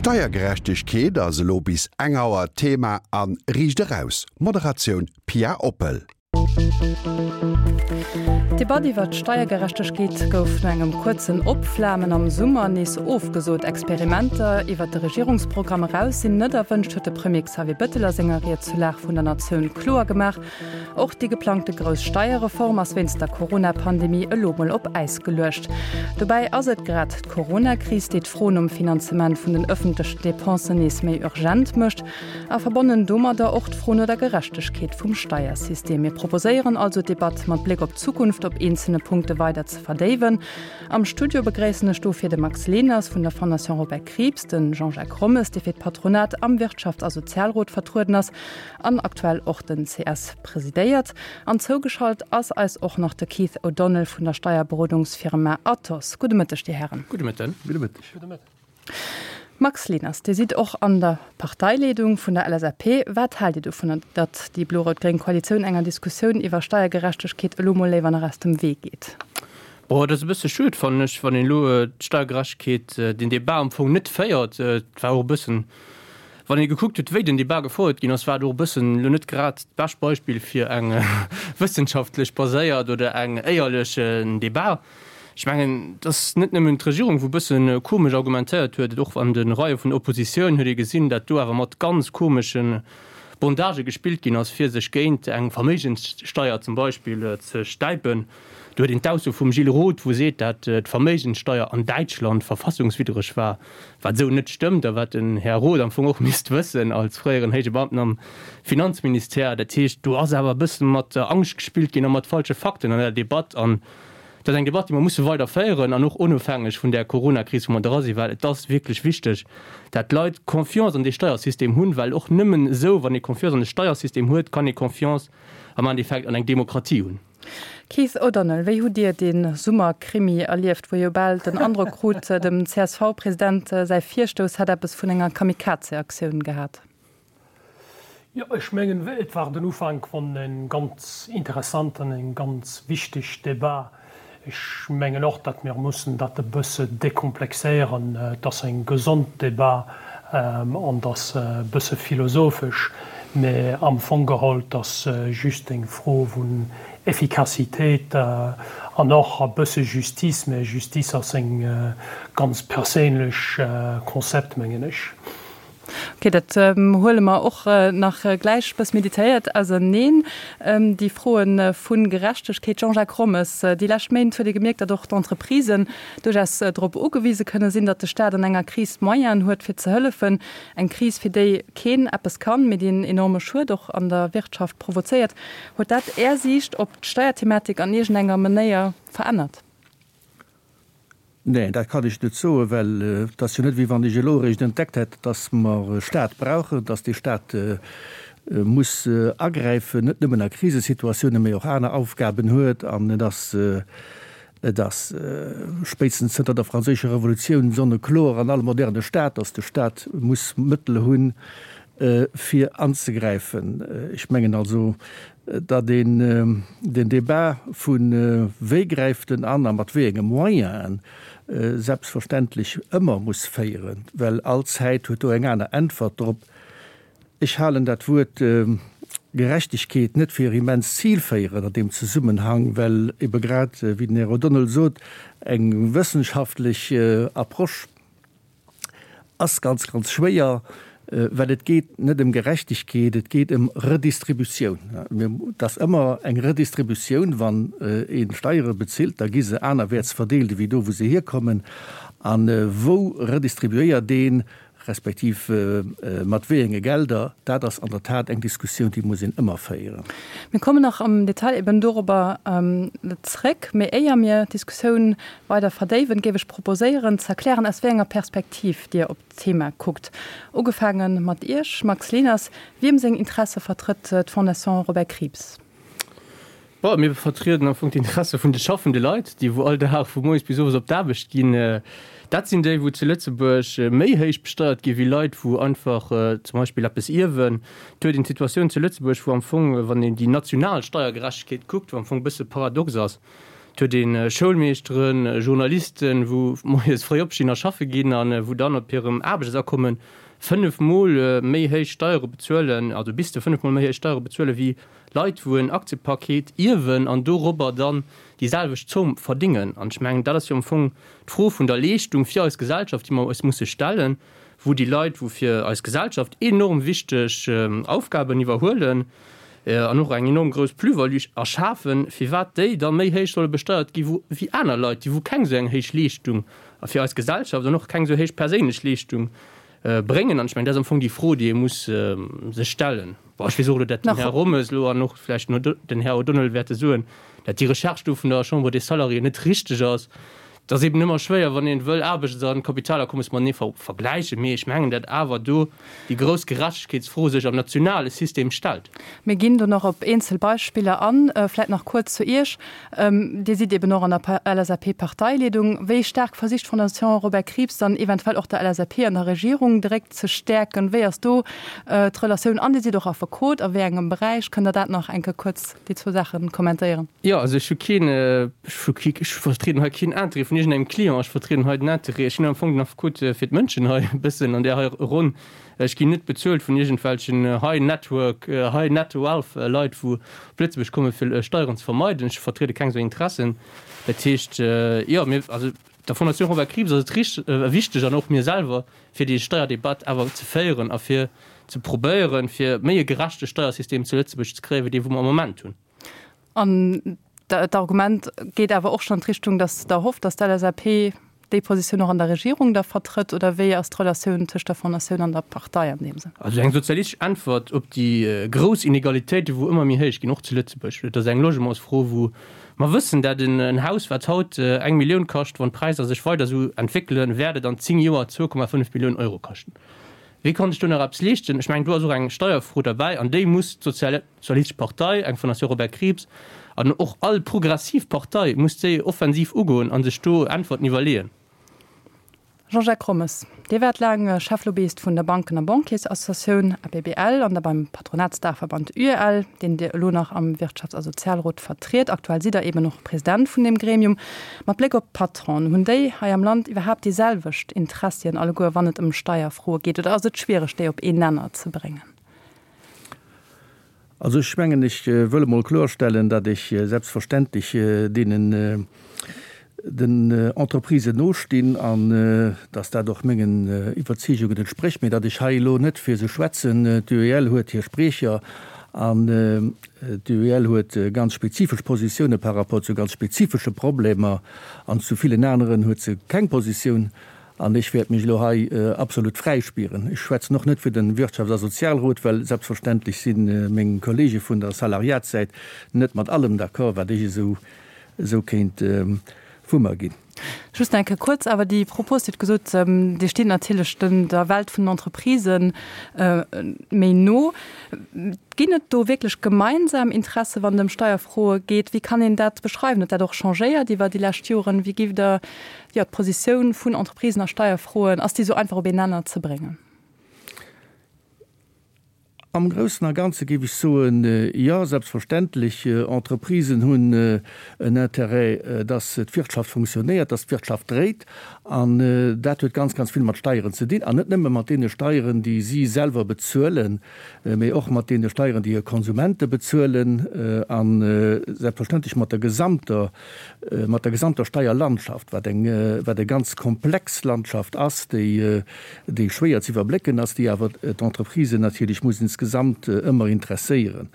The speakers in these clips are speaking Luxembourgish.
Steiergerechtegkeet ass elo bis eng Auer Thema a Riicht Eraus. Moderatioun Pia Oppel. D'Debatt iwwer d'Steiergerechtegkeet gouf no engem kuerzen Opflamen am Summer nees ofgesot. Experimenter iwwer de Regierungsprogramm eraus sinn net erwënscht, huet de Premier Xavier Bettel a senger Ried zur Lag vun der Natioun kloer gemaach. Och déi geplangte grouss Steierreform ass wéinst der Corona-Pandemie elo mol op Äis geluecht. Dobäi ass et grad d'Corona-Kris, déi d'Fro nom Finanzement vun den ëffentlechen Depensen nees méi urgent mécht a verbonnen domadder och d'Fro no der Gerechtegkeet vum Steiersystem. Mir proposéieren also, d'Debatt mat Bléck op d'Zukunft op eenzelne Punkte weider ze verdéiwen. Am Studio begréissen ech dofir de Max Leners vun der Fondation Robert Krieps, de Jean-Jacques Rommes, dee fir d'Patronat am Wirtschafts a Sozialrot vertrueden ass, an aktuell och den CS presidéiert. An zougeschalt ass eis och nach de Keith O'Donnell vun der Steierberodungsfirma Athos. Gudde Mëtteg, Dir Hären. Gudde Mëtten. Gudde Mëtteg. Gudde Mëtteg. Max Leners, Dir sidd och an der Parteileedung vun der LSAP. Wat haalt Dir dovunner, datt déi blo-rout-gréng Koalitioun enger Diskussioun iwwer Steiergerechtegkeet elo mol léiwer nach aus dem Wee geet? Bon, et ass e bësse schued, fannen ech, wann een elo d'Steiergerechtegkeet, den Débat am Fong net féiert. Et war och e bëssen Wann ee gekuckt huet, wéi den Debat gefouert ginn ass, war et och e bëssen elo net grad d'bescht Beispill fir eng wëssenschaftlech baséiert oder eng éierlech Debat. Ech mengen, et ass net nëmmen d'Regierung, wou e bësse komesch argumentéiert huet, et och an de Reie vun der Oppositioun huet ee gesinn, dat do awer mat ganz komesche Bondagë gespillt ginn ass, fir sech géint eng Verméigenssteier zum Beispill ze stäipen. Do huet een d'Ausso vum Gilles Roth, wou seet, dat d'Verméigenssteier an Däitschland verfassungswiddreg war, wat esou net stëmmt a wat den Här Roth am Fong och misst wëssen als fréieren héije Beamten am Finanzministère. Dat heescht, do ass awer e bësse mat Angscht gespillt ginn a mat falsche Fakten an der Debatt. An dat ass eng Debatt, déi mer musse weider féieren an och onofhängeg vun där Coronakris, wou mer dra sinn, well et ass wierklech wichteg, dat d'Leit Confiance an dee Steiersystem hunn, well och nëmmen esou, wann ee Confiance an de Steiersystem huet, kann ee Confiance am Endeffekt an eng Demokratie hunn. Keith O'Donnell, wéi hutt Dir dee Summerkrimi erlieft, wou ee jo bal den Androck krut, dem CSV-President säi Virstouss hätt eppes vun enger Kamikaze-Aktioun gehat? Jo, ech mengen, et war den Ufank vun en ganz interessant an eng ganz wichteg Debat. Ech mengen och, datt mir mussen dat e bësse dekomplexéieren. Et ass eng gesond Debat an et ass e bësse philosophesch, mä am Fong geholl, et ass just eng Fro vun Efficacitéit an och e bësse Justice, mä Justice ass eng ganz perséinlech Concept, mengen ech. Ok, dat huele mer och nach gläich bëss meditéiert auserneen, déi Froe vu Gerechtegkeet. Jean-Jacques Rommes, déi lescht Méint huet ee gemierkt, datt och d'Entreprisen duerchaus drop ugewise kënne sinn, datt de Staat an enger Kris d'Moyenen huet fir ze hëllefen. Eng Kris, fir déi keen eppes kann, mee déi en enorme Schued och an der Wirtschaft provozéiert. Huet dat Är Siicht op d'Steierthematik an iergendenger Manéier verännert? Neen, dat kann ech net soen, well et ass jo net, wéi wann ech elo eréischt entdeckt hätt, dass mer e Stat brauchen, dass dee Stat muss agräifen, net nëmmen a Krisesituatiounen, mä och aner Aufgaben huet. An et ass, et ass spéitstens zënter der Franséischer Revolutioun sonnekloer an all moderne Stat, dass de Stat muss Mëttel hunn, fir anzegräifen. Ech mengen also, datt een den Débat vu wéi gräift en an a mat wéi enge Moyenen selbstverständlech ëmmer muss féieren, well all Zäit huet do eng aner Äntwert drop. Ech halen dat Wuert Gerechtegkeet net fir immens zilféierend an deem Zesummenhang, well ebe grad, wéi den Här O'Donnell sot, eng wëssenschaftlech Approche, Ass ganz, ganz schwéier, well et geet net ëm Gerechtegkeet, et geet ëm Redistributioun. Et ass ëmmer eng Redistributioun, wann ee Steiere bezilt, da gi se anerwäerts verdeelt ewéi do, wou se hierkommen. A wou redistribuéiert een, respektiv mat wéi enge Gelder, dat ass an der Tat eng Diskussioun, déi muss een ëmmer féieren. Mir kommen nach am Detail eben dorobber zréck. Mee éier mir d'Diskussioun weider verdéiwen, géif ech proposéieren ze erklären, aus wéi enger Perspektiv Dir op d'Thema kuckt. Ugefaange mat Iech, Max Leners, Wiem seng Interesse vertrëtt d'Fondation Robert Krieps? Bon, mir vertrieden am Fong d'Interesse vun de schaffende Leit, déi wou all Dag vu moies bis owes op d'Aarbecht ginn. Dat sinn déi, wou zu Lëtzebuerg méi héich besteiert gi wéi Leit, wou einfach zum Beispill eppes ierwen. Et huet een d'Situatioun zu Lëtzebuerg, wou am Fong, wann een déi national Steiergerechtegkeet kuckt, wou am Fong e bësse paradox ass. Et huet ee Schoulmeeschteren, Journalisten, wou moies fréi opstinn a schaffe ginn a wou dann op hirem Aarbechtsakommen fënnefmol méi héich Steiere bezuelen, also bis zu fënnefmol méi héich Steiere bezuelen, wéi Leit, wou en Aktiepaket ierwen an dorobber dann déi selwecht Zomm verdingen. An ech mengen, dat ass jo am Fong d'Fro vun der Leeschtung fir eis Gesellschaft, déi mer eis musse stellen, wou déi Leit, wou fir eis Gesellschaft enorm wichteg Aufgaben iwwerhuelen an och eng enorm grouss Plus-value erschafen, firwat déi da méi héich solle besteiert gi wéi aner Leit, déi wou keng esou eng héich Leeschtung fir eis Gesellschaft an och keng esou héich perséinlech Leeschtung bréngen. An ech mengen, dat ass am Fong déi Fro, déi ee muss sech stellen. Bon, ech weess och elo, datt den Här Rommes elo an och vläicht den Här O'Donnell wäerte soen, datt déi Recherche do vun der Chambre des Salariés net richteg ass. Et ass eben ëmmer schwéier, wann ee wëll Aarbechts a Kapitalakommes matenee vergläichen, mee ech mengen, datt awer do déi grouss Gerechtegkeetsfro sech am nationale System stellt. Mir ginn do nach op eenzel Beispiller an. Vläicht nach kuerz zu Iech. Dir sidd eben och an der LSAP-Parteileedung. Wéi staark versicht d'Fondation Robert Krieps dann eventuell och der LSAP an der Regierung de Réck ze stäerken? Wéi ass do d'Relatioun? An Dir sidd och Affekot. A wéi engem Beräich? Kënnt Der dat nach eng Kéier kuerz déi zwou Saache kommentéieren? Jo, also ech hu keen, ech hu kee, ech vertrieden hei keen Interêt vun iergendengem Client, ech vertrieden hei den Interêt, ech sinn am Fong den Affekot fir d'Mënschen hei e bëssen an där hei Ronn. Ech ginn net bezuelt vun iergendwelchen High Network, High Net Wealth Leit, wou op Lëtzebuerg komme fir Steieren ze vermeiden. Ech vertriede keng esou Interessen. Dat heescht, jo, mir, also der Fondation Robert Krieps ass et rich, wichteg an och mir selwer, fir déi Steierdebatt awer ze féieren a fir ze probéieren, fir méi e gerechte Steiersystem zu Lëtzebuerg ze kréien, wéi dee wou mer am Moment hunn. An d'Argument geet awer och schonn an d'Richtung, datt Der hofft, datt d'LSAP déi Positioun och an der Regierung da vertrëtt, oder wéi ass d'Relatioun tëscht der Fondatioun an der Partei an deem Sënn? Also eng sozialistesch Äntwert op déi grouss Inegalitéiten, wou ëmmer méi héich ginn, och zu Lëtzebuerg, dat ass eng Logementsfro, wou mer wëssen, dat en Haus, wat haut eng Millioun kascht, wann d'Präisser sech weider esou entwéckelen, wäert et an 10 Joer 2,5 Milliounen Euro kaschten. Wee kann sech do nach eppes leeschten? Ech mengen, do ass och eng Steierfro derbäi an déi muss d'Sozialistesch Partei, eng Fondation Robert Krieps an och all progressiv Partei muss déi offensiv ugoen a sech do Äntwerten iwwerleeën. Jean-Jacques Rommes, Dir waart laang Cheflobbyist vun der Banken a Banquiersassociatioun, ABBL, an da beim Patronatsdaachverband UEL, deen Dir elo nach am Wirtschafts a Sozialrot vertriet. Aktuell sidd Der eben och President vun deem Gremium. Mat Bléck op d'Patronen, hunn déi hei am Land iwwerhaapt déi selwecht Interessien alleguer, wann et ëm Steierfroe geet, oder ass et schwiereg, déi op een Nenner ze bréngen? Also ech mengen, ech wëll emol kloerstellen, datt ech selbstverständlech deenen, den Entreprisen nostinn an datt dat och mengen Iwwerzeegungen entsprécht, mä datt ech hei elo net fir se schwätzen. D'UEL huet hir Spriecher an d'UEL huet ganz spezifesch Positioune par rapport zu ganz spezifesche Problemer an zu villen aneren huet se keng Positioun. An ech wäert mech elo hei absolut fräi spieren. Ech schwätzen och net fir de Wirtschafts a Sozialrot, well selbstverständlech si meng Kollege vun der Salariatssäit net mat allem d'accord, wat ech esou esou kéint vu mer ginn. Just eng Kéier kuerz awer déi Propos, Dir hutt gesot, Dir stitt natierlech den der Welt vun den Entreprisen méi no. Ginn et do wierklech gemeinsam Interesse wann et ëm Steierfroe geet? Wéi kann een dat beschreiwen? Huet dat och changéiert iwwer déi lescht Joren? Wéi giff Der jo, d'Positioun vun Entreprisen a Steierfroen, ass déi esou einfach op een Nenner ze bréngen? Am Groussen a Ganze géif ech soen, jo, selbstverständlech. Entreprisen hunn en Intérêt, dass d'Wirtschaft funktionéiert, dass d'Wirtschaft dréit. An dat huet ganz, ganz vill mat Steieren ze dinn. An net nëmme mat deene Steieren, déi si selwer bezuelen, mee och mat deene Steieren, déi hir Konsumente bezuelen a selbstverständlech mat der gesamter mat der gesamter Steierlandschaft, wat eng, wat e ganz komplex Landschaft ass, déi, déi schwéier ze iwwerblécken ass, déi awer d'Entreprisen natierlech muss insgesamt ëmmer interesséieren.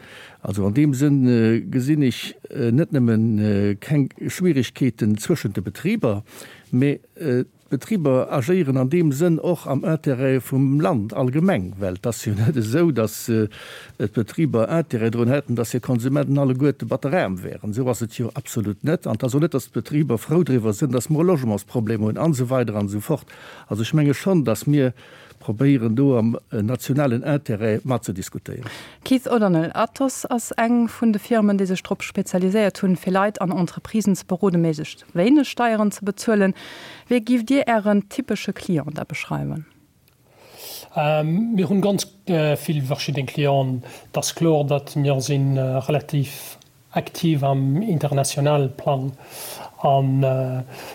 Also an deem Sënn gesinn ech net nëmme keng Schwierigkeeten zwëschent de Betriber, mä D'Betriber agéieren an deem Sënn och am Intérêt vum Land allgemeng, well et ass jo net esou, datt d'Betriber Intérêt drun hätten, datt hir Konsumenten alleguerte batteraarm wären. Esou ass et jo absolut net. An et ass och net, datt d'Betriber frou driwwer sinn, datt mer e Logementsproblem hunn an esou weider an esou fort. Also ech menge schonn, datt mir probéieren, do am nationalen Intérêt matzediskutéieren. Keith O'Donnell, Atos ass eng vun de Firmen, déi sech drop spezialiséiert hunn, fir Leit an Entreprisen ze beroden, méiglechst wéineg Steieren ze bezuelen. Wéi giff Dir Ären typesche Client da beschreiwen? Mir hunn ganz vill verschidden Clienten. Et ass kloer, datt mir si relativ. aktiv am internationale Plang. An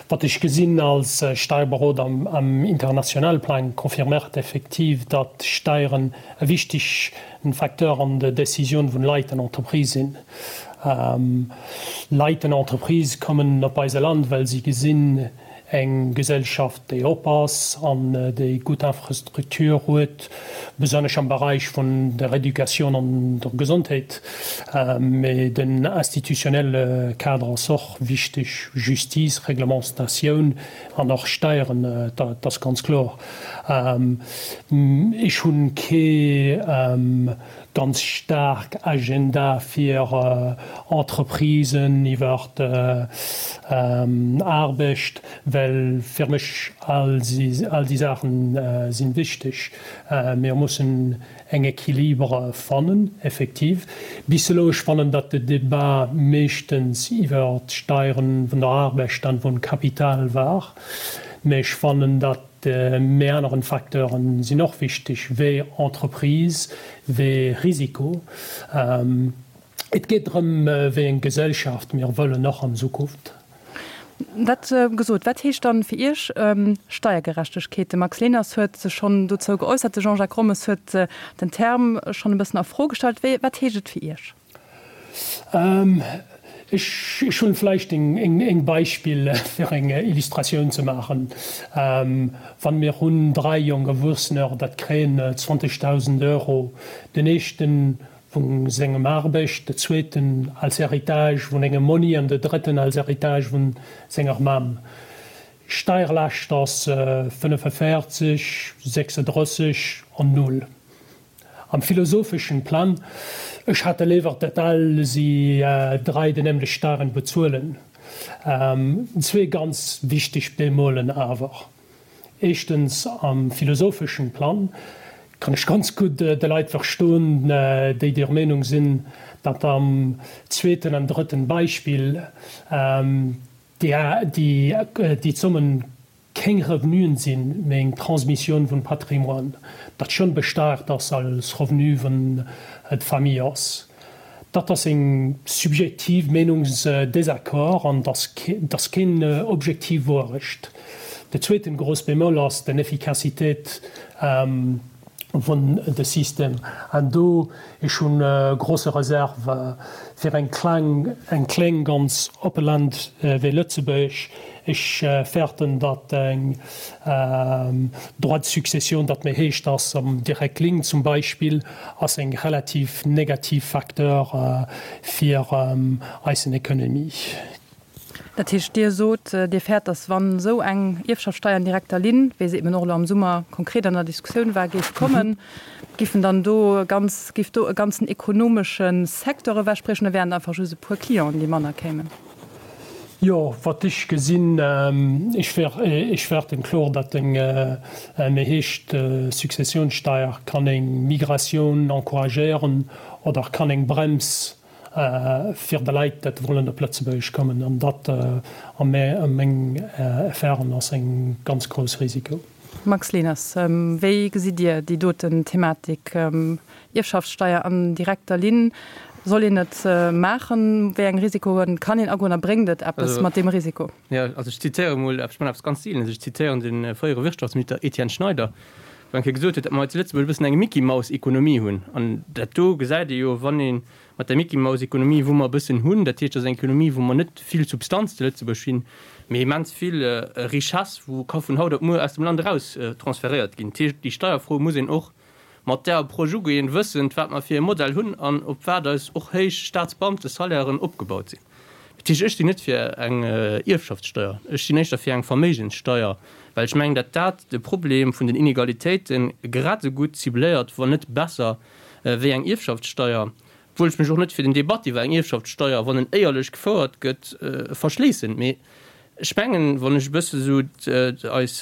wat ech gesinn als Steierberoder am internationale Plang, confirméiert effektiv, datt Steieren e wichtegen Facteur an der Decisioun vun Leit an Entreprisë sinn. Leit an Entreprisë kommen op eise Land, well si gesinn, Eng Gesellschaft, déi op ass an déi gutt Infrastruktur huet, besonnesch am Beräich vun der Educatioun an der Gesondheet. Mee den institutionnelle Kader ass och wichteg, Justice, Reglementatioun an och Steieren, dat ass ganz kloer. Ech hunn kee ganz staark Agenda fir Entreprisen iwwer Aarbecht, well fir mech all déi Saachen sinn wichteg. Mir mussen eng Equilibre fannen, effektiv. Bis elo, ech fannen, datt de Debat meeschtens iwwer d'Steieren vun der Aarbecht an vum Kapital war, mä ech fannen, datt Mee aneren Facteuren sinn och wichteg, wéi Entreprise, wéi Risiko. Et geet drëm, wéi eng Gesellschaft mir wëllen, och an Zukunft. Dat gesot, wat heescht dann fir Iech Steiergerechtegkeet? De Max Leners huet sech schonn dozou geäussert, de Jean-Jacques Rommes huet den Term schonn e bëssen a Fro gestallt. Wat heescht et fir Iech? Ech hunn vläicht eng Beispill fir eng Illustratioun ze maachen. Wann mir hunn 3 jonk Erwuessener, dat kréien 20.000 Euro, den éischten vun sengem Aarbecht, de zweeten als Héritage vun engem Monni an de drëtten als Héritage vun senger Mamm. Steierlaascht ass 45, 36 an null. Am philosopheschen Plan, ech hätte léiwer dat all si 3 de nämlech Steieren bezuelen. Zwee ganz wichteg Bémolen awer. Éischtens, am philosopheschen Plan kann ech ganz gutt de Leit verstoen, déi der Meenung sinn, datt am zweeten an drëtten Beispill déi Zommen keng Revenuen sinn, mee eng Transmissioun vun Patrimoine, dat schonn besteiert ass als Revenu vun d'Famille ass. Dat ass eng subjektiv Meenungsdésaccord an dat ass keen objektiv Wouerecht. De zweeten grouss Bémol ass den Efficacitéit vun de System. An do, ech hunn grosse Reserve fir eng kleng, eng kléng ganz oppe Land wéi Lëtzebuerg. Ech fäerten, datt eng Droit de succession, dat méi héich ass am direct Link zum Beispill, ass eng relativ negativ Facteur fir eisen Economie. Dat heescht, Dir sot, Dir fäert, datt wann esou eng Ierfschaftssteier an direkter Linn, wéi se eben och elo am Summer konkret an der Diskussioun war, géif kommen, giffen dann do ganz, géif do e ganzen ekonomesche Secteur ewechbriechen oder wären et einfach just e puer Clienten, déi manner kéimen? Jo, wat ech gesinn, ech ech fäerten kloer, datt eng méi héich Successionssteier kann eng Migratioun encouragéieren oder kann eng Brems fir de Leit, dat wollen op Lëtzebuerg kommen. An dat a meng Erfahrung ass eng ganz grouss Risiko. Max Leners, wéi gesitt Dir déi doten Thematik, Ierfschaftssteier an direkter Linn? Soll een et maachen? Wéi eng Risikoen kann een agoen a bréngt et eppes mat deem Risiko? Jo, also ech zitéiere mol, ech man eppes ganz Seelenes, ech zitéieren de fréiere Wirtschaftsminister Etienne Schneider, wou eng Kéier gesot huet, datt mer hei zu Lëtzebuerg e bëssen eng Mickey-Maus-Ekonomie hunn. An dat do gesäit ee jo, wann ee mat der Mickey-Maus-Ekonomie, wou mer e bëssen hunn, dat heescht, dat ass eng Ekonomie, wou mer net vill Substanz zu Lëtzebuerg hunn, mee immens vill Richesse, wou ka vun haut op muer aus dem Land eraus transferéiert ginn. Dat heescht, déi Steierfro muss een och mat där Approche ugeen, wëssend, wat mer fir e Modell hunn an op wat eis och héich Staatsbeamtesalairen opgebaut sinn. Dat heescht, ech sinn net fir eng Ierfschaftssteuer, ech sinn éischter fir eng Verméigenssteuer, well ech mengen, datt dat de Problem vun den Inegalitéite grad esou gutt cibléiert, wann net besser, wéi eng Ierfschaftssteuer. Obwuel ech mech och net fir den Debat iwwer eng Ierfschaftssteuer, wann en éierlech gefouert gëtt, verschléissen. Mee ech mengen, wann ech e bësse sou eis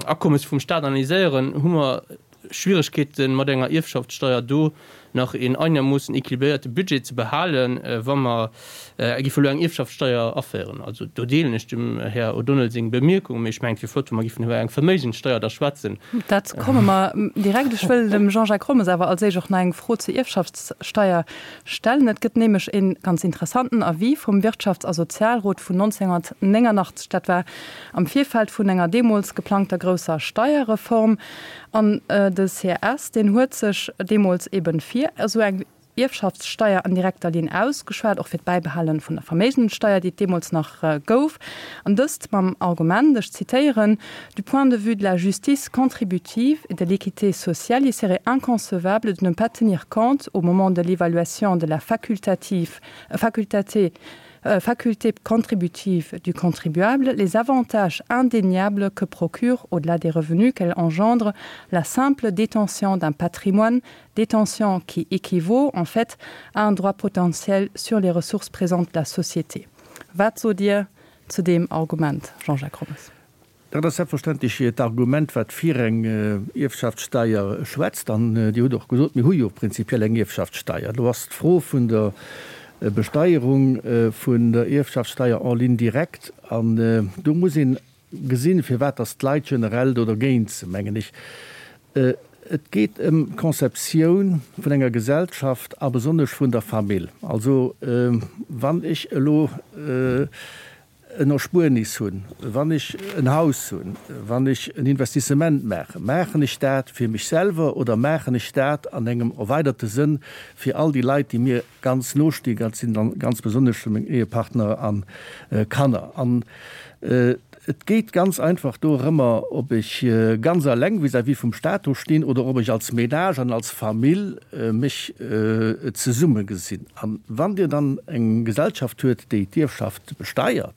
Akommes vum Stat analyséieren, hu mer Schwieregkeeten mat enger Ierfschaftssteuer do. nach een einermoossen équilibréierte Budget ze behalen, wa mer géife elo eng Ierfschaftssteier aféieren. Also do deelen ech dem Här O'Donnell seng Bemierkung, mee ech mengen, et wier flott, wa mer géifen iwwer eng Verméigenssteier da schwätzen. Dat komme mer direkt. Ech wëll dem Jean-Jacques Rommes awer als éischt och nach eng Fro zur Ierfschaftssteier stellen. Et gëtt nämlech e ganz interessanten Avis vum Wirtschafts a Sozialrot vun 1989. Dat war am Virfeld vun enger deemools geplangter grousser Steierreform. An de CRS, deen huet sech deemools eben fir esou eng Ierfschaftssteier an direkter Linn ausgeschwat, och fir d'Bäibehale vun der Verméigenssteier, déi et deemools nach gouf, an dëst mam Argument, ech zitéieren, Du point de vue de la justice contributive et de l'équité sociale, il serait inconcevable de ne pas tenir compte, au moment de l'évaluation de la facultative, facultaté, faculté contributive du contribuable, les avantages indéniables que procure, au-delà des revenus qu'elle engendre, la simple détention d'un patrimoine, détention qui équivaut en fait à un droit potentiel sur les ressources présentes de la société. Wat sot Dir zu deem Argument, Jean-Jacques Rommes? Dat ass selbstverständlech d'Argument, wat fir eng Ierfschaftssteier schwätzt. An Dir hutt och gesot, mir hu jo prinzipiell eng Ierfschaftssteier. Do ass d'Fro vun der Besteierung vun der Ierfschaftssteier en ligne directe. An do muss een gesinn, firwat dass d'Leit generell do dergéint sinn, mengen ech. Et geet ëm d'Conceptioun vun enger Gesellschaft a besonnesch vun der Famill. Also wann ech elo en Erspuernis hunn, wann ech en Haus hunn, wann ech en Investissement maachen, maachen ech dat fir mech selwer oder maachen ech dat an engem erweiderte Sënn fir all déi Leit, déi mir ganz no stinn, dat sinn dann ganz besonnesch meng Ehepartner a Kanner. An et geet ganz einfach dorëmmer, ob ech ganz eleng vis-à-vis vum Stat do stinn oder ob ech als Ménage an als Famill mech zesumme gesinn. A wann Dir dann eng Gesellschaft huet, déi d'Ierfschaft besteiert,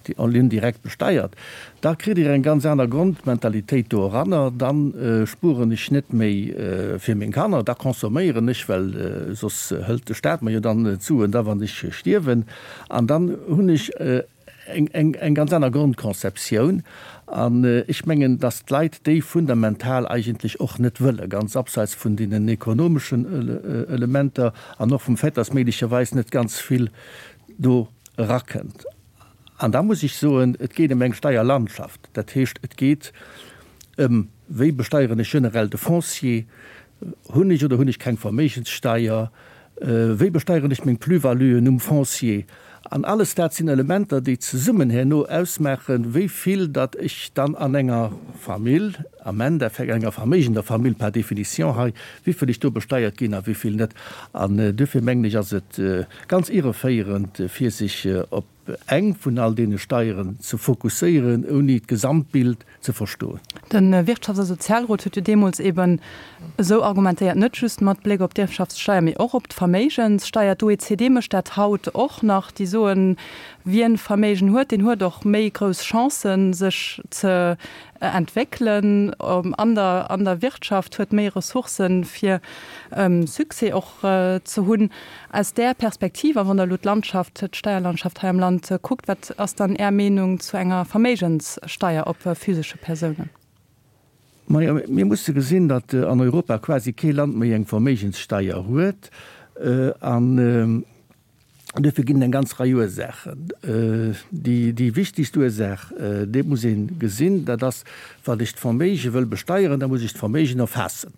déi en ligne directe besteiert, da kritt Dir eng ganz aner Grondmentalitéit do eranner. Da spueren ech net méi fir meng Kanner, da consomméieren ech, well soss hëlt de Stat mer jo dann d'Suen da wann ech stierwen. An dann hunn ech eng ganz aner Grondconceptioun. An ech mengen, dass d'Leit déi fundamental eigentlech och net wëllen, ganz abseits vun deenen ekonomeschen Elementer an och vum Fait, dass méiglecherweis net ganz vill do erakënnt. An da muss ech soen, et geet ëm eng Steierlandschaft. Dat heescht, et geet ëm, Wéi besteieren ech generell de Foncier? Hunn ech oder hunn ech keng Verméigenssteier? Wéi besteieren ech meng Plus-valuen um Foncier? An alles dat sinn Elementer, déi zesummen herno ausmaachen, wéi vill datt ech dann an enger Famill, am Endeffekt enger verméigender Famill par définition hei, wéi vill ech do besteiert ginn a wéi vill net. An duerfir mengen ech, ass et ganz irreféierend, fir sech op eng vun all deene Steieren ze fokusséieren, ouni d'Gesamtbild ze verstoen. De Wirtschafts a Sozialrot huet jo deemools eben esou argumentéiert, net just mat Bléck op d'Ierfschaftssteier, mee och op d'Verméigenssteier. D'OECD mécht dat haut och nach. Déi soen, wien Verméigen huet, deen huet och méi grouss Chancen, sech ze entwéckelen an der an der Wirtschaft, huet méi Ressourcen, fir Succès och ze hunn. Aus där Perspektiv, a wann Der elo d'Landschaft, d'Steierlandschaft hei am Land kuckt, wat ass dann Är Meenung zu enger Verméigenssteier op physesche Persounen? Majo, mir musse gesinn, datt an Europa quasi kee Land méi eng Verméigenssteier huet. An duerfir ginn et eng ganz Rei Ursaachen. Déi wichtigst Ursaach, déi muss ee gesinn, dat ass, Wann ech d'Verméige wëll besteieren, da muss ech d'Verméigen erfaassen.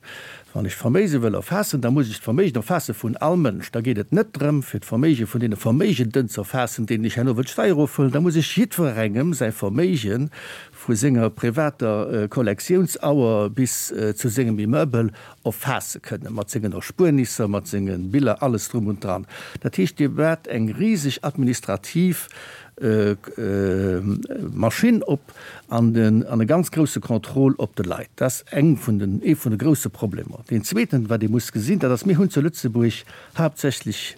Wann ech d'Verméige wëll erfaassen, da muss ech d'Verméigen erfaasse vun all Mënsch. Da geet et net drëm, fir d'Verméige vun deene Verméigenden ze erfaassen, deenen ech herno wëll d'Steier ofhuelen. Da muss ech jiddwerengem säi Verméige vu senger privater Kollektiounauer bis zu sengem Immeuble erfaasse kënnen, mat sengen Erspuernisser, mat senge Biller, alles drum und dran. Dat heescht, Dir baut eng riseg administrativ Maschinn op an e ganz grousse Contrôle op de Leit. Dat ass eng vun den, ee vun de grousse Problemer. Deen zweeten, wat ee muss gesinn, dat ass, mir hunn zu Lëtzebuerg haaptsächlech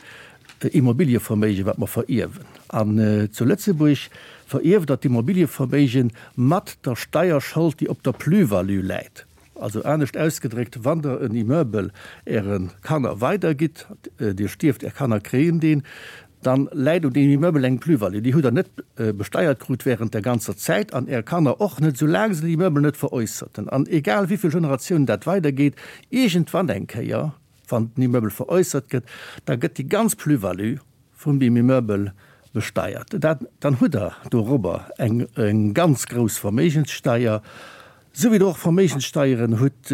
Immobilieverméigen, wat mer verierwen. An zu Lëtzebuerg verierft Der d'Immobilieverméigen mat der Steierschold, déi op der Plus-value läit. Also anescht ausgedréckt, wann Der en Immeuble Äre Kanner weidergitt, Dir stierft, Är Kanner kréien deen, dann läit un deem Immeuble eng Plus-value. Déi hutt Der net besteiert krut während der ganzer Zäit an Är Kanner och net, soulaang se den Immeuble net veräusserten. An egal wéi vill Generatiounen dat weidergeet, iergendwann eng Kéier. Wann den Immeubel veräussert gëtt, da gëtt déi ganz Plus-value vun deem Immeubel besteiert. Dat, dann hutt Der dorobber eng, eng ganz grouss Verméigenssteier, esou wéi Der och Verméigenssteieren hutt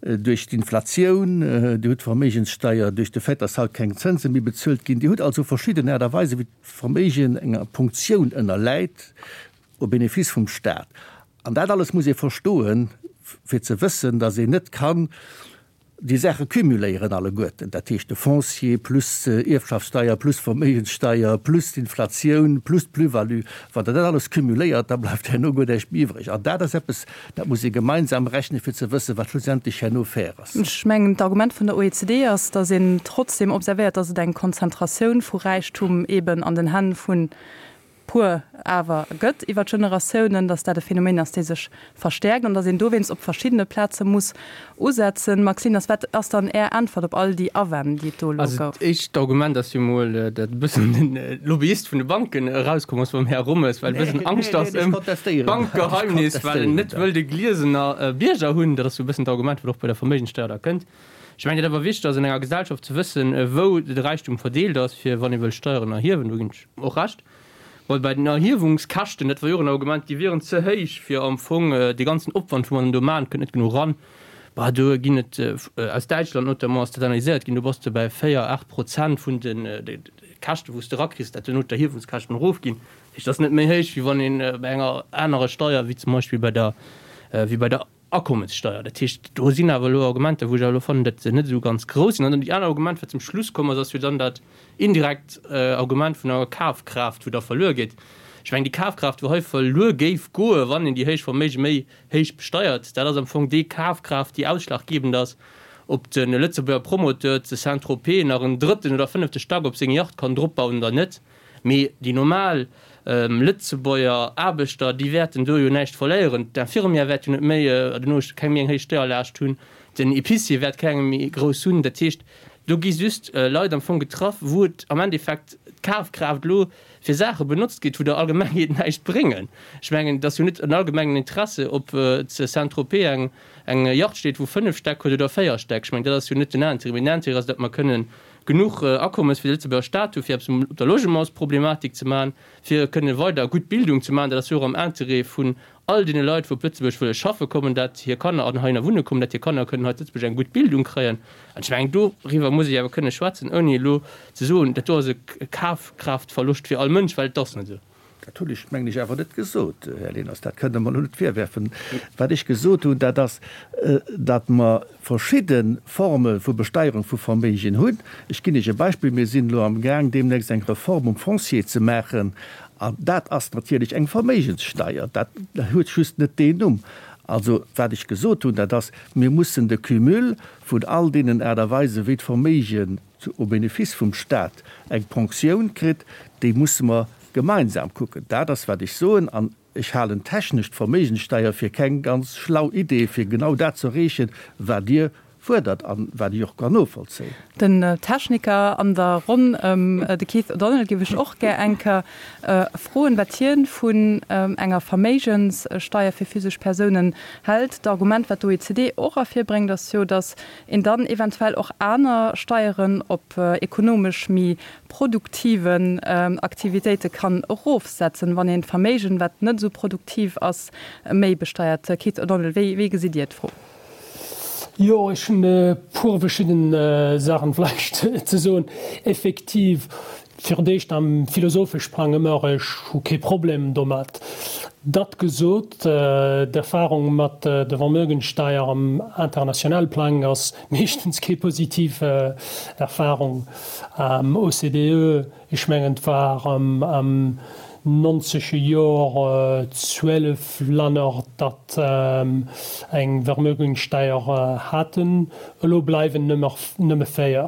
duerch d'Inflatioun, Dir hutt Verméigenssteier duerch de Fait, dass haut keng Zënse méi bezuelt ginn. Dir hutt also verschidden Aart a Weisen, wéi d'Verméigen enger Punktioun ënnerläit au bénéfice vum Stat. An dat alles muss ee verstoen, fir ze wëssen, dass een net kann déi Saache cumuléieren alleguerten, dat heescht de Foncier plus Ierfschaftssteier plus Verméigenssteier plus d'Inflatioun plus d'Plus-value. Wann Der dat alles cumuléiert, da bleift herno guer näischt méi iwwreg. An dat ass eppes, dat muss ee gemeinsam rechnen, fir ze wëssen, wat schlussendlech herno fair ass. Ech mengen, d'Argument vun der OECD ass, datt een trotzdem observéiert, datt et eng Konzentratioun vu Räichtum eben an den Hänn vun puer awer gëtt iwwer d'Generatiounen, datt dat e Phänomen ass, dee sech verstäerkt an datt een dowéinst op verschiddene Plaze muss usetzen. Max Lieners, wat ass dann Är Äntwert op all déi Awänn, déi et do elo Also gouf? d'éischt Argument ass jo mol, datt e bëssen de Lobbyist vun de Banken erauskomm ass beim Här Rommes, well e bëssen Angscht ass ëm d'Bankgeheimnis, well en net wëll de gliesener Bierger hunn. Dat ass jo e bëssen d'Argument, wat och bei der Verméigenssteuer da kënnt. Ech mengen, et ass awer wichteg ass an enger Gesellschaft ze wëssen, wou de Räichtum verdeelt ass, fir wann ee wëll Steieren erhiewen, do ginn ech och Recht. Bon, bei den Erhiewungskäschten, dat war jo och en Argument, déi wieren ze héich, fir am Fong dee ganzen Opwand, wou mer dann do maachen, kënnt net genuch eran. Bah, do ginn et, aus Däitschland notamment ass dat analyséiert ginn, do bass de bei 4, 8 Prozent vun de Käschten, wou s de erakriss, dat duerno d'Erhiewungskäschten erofginn. Dat heescht, dat ass net méi héich, wéi wann ee bei enger anerer Steier, wéi zum Beispill bei der, wéi bei der Akommessteier. Dat heescht, do sinn awer elo Argumenter, wou ech awer elo fannen, datt se net esou ganz grouss sinn. An dann déi aner Argument, wat zum Schluss komm ass, ass jo dann dat indirekt Argument vun der Kafkraaft, wou da verluer geet. Ech mengen, déi Kafkraaft, wou hei verluer géif goen, wann een déi héich Verméige méi héich besteiert, dat ass am Fong déi Kafkraaft, déi ausschlaggebend ass, ob de Lëtzebuerger Promoteur zu Saint-Tropez nach en drëtten oder fënnefte Stack op seng Yacht kann dropbauen oder net. Mee déi normal Lëtzebuerger Aarbechter, déi wäerten do jo näischt verléieren. D'Infirmière wäert jo net méi, duerno keng méi eng héich Steierlaascht hunn, den Epicier wäert keng méi grouss hunn. Dat heescht, do gi just Leit am Fong getraff, wou et am Endeffekt d'Kafkraaft elo fir Saache benotzt gétt, wou der Allgemengheet näischt bréngen. Ech mengen, et ass jo net en allgemengen Interesse, ob zu Saint-Tropez eng eng Yacht steet, wou 5 Stäck huet oder 4 Stäck. Ech mengen, dat ass jo net den Intérêt. Mee den Intérêt ass, datt mer kënnen genuch Akommes fir de Lëtzebuerger Staat hu fir eppes op der Logementsproblematik ze maachen, fir kënne weider gutt Bildung ze maachen. Dat ass jo och am Interêt vun all deene Leit, wou op Lëtzebuerg wëlle schaffe kommen, dat hir Kanner an heihinner wunne kommen, dat hir Kanner kënnen hei zu Lëtzebuerg eng gutt Bildung kréien. An ech mengen, doriwwer muss ee awer kënne schwätzen, ouni elo ze soen, dat do ass e Kafkraaftverloscht fir all Mënsch, well et ass net esou. Dat hunn ech, mengen ech, awer net gesot, Här Leners. Dat kënnt Der mer elo net virwerfen. Wat ech gesot hunn, dat ass, datt mer verschidde Forme vu Besteierung vu Verméigen hunn. Ech ginn Iech e Beispill, Mir sinn elo amgaang, deemnächst eng Reform um Foncier ze maachen. An dat ass natierlech eng Verméigenssteier. Dat huet just net deen Numm. Also, wat ech gesot hunn, dat ass, Mir mussen de Cumul vun all deenen Aart a Weisen, wéi d'Verméigen au bénéfice vum Stat eng Ponctioun kritt, déi musse mer gemeinsam kucken. Dat ass, wat ech soen. An ech halen technesch d'Verméigenssteier fir keng ganz schlau Idee, fir genau dat ze erreechen, wat Dir fuerdert an wat ech och kann novollzéien. Den Techniker an der Ronn, de Keith O'Donnell, géif ech och gär eng Kéier froen, wat hien vun enger Verméigenssteier fir physesch Persounen hält. D'Argument, wat d'OECD och ervirbréngt, ass jo, datt een dann eventuell och aner Steieren op ekonomesch méi produktiven Aktivitéite kann erofsetzen, wann een d'Verméigen, wat net esou produktiv ass, méi besteiert. Keith O'Donnell, wéi wéi gesitt Dir d'Fro? Jo, ech hunn e puer verschidden Saachen vläicht ze soen. Effektiv, fir d'éischt am philosophesch Plang ëmmer, ech hu kee Problem domat. Dat gesot, d'Erfahrung mat der Vermögensteier am internationale Plang ass meeschtens kee positiv Erfahrung. OCDE, ech mengen et war am nonzege Jor 12 Länner, dat eng Vermögensteier haten, elo bleiwen nëmme 4.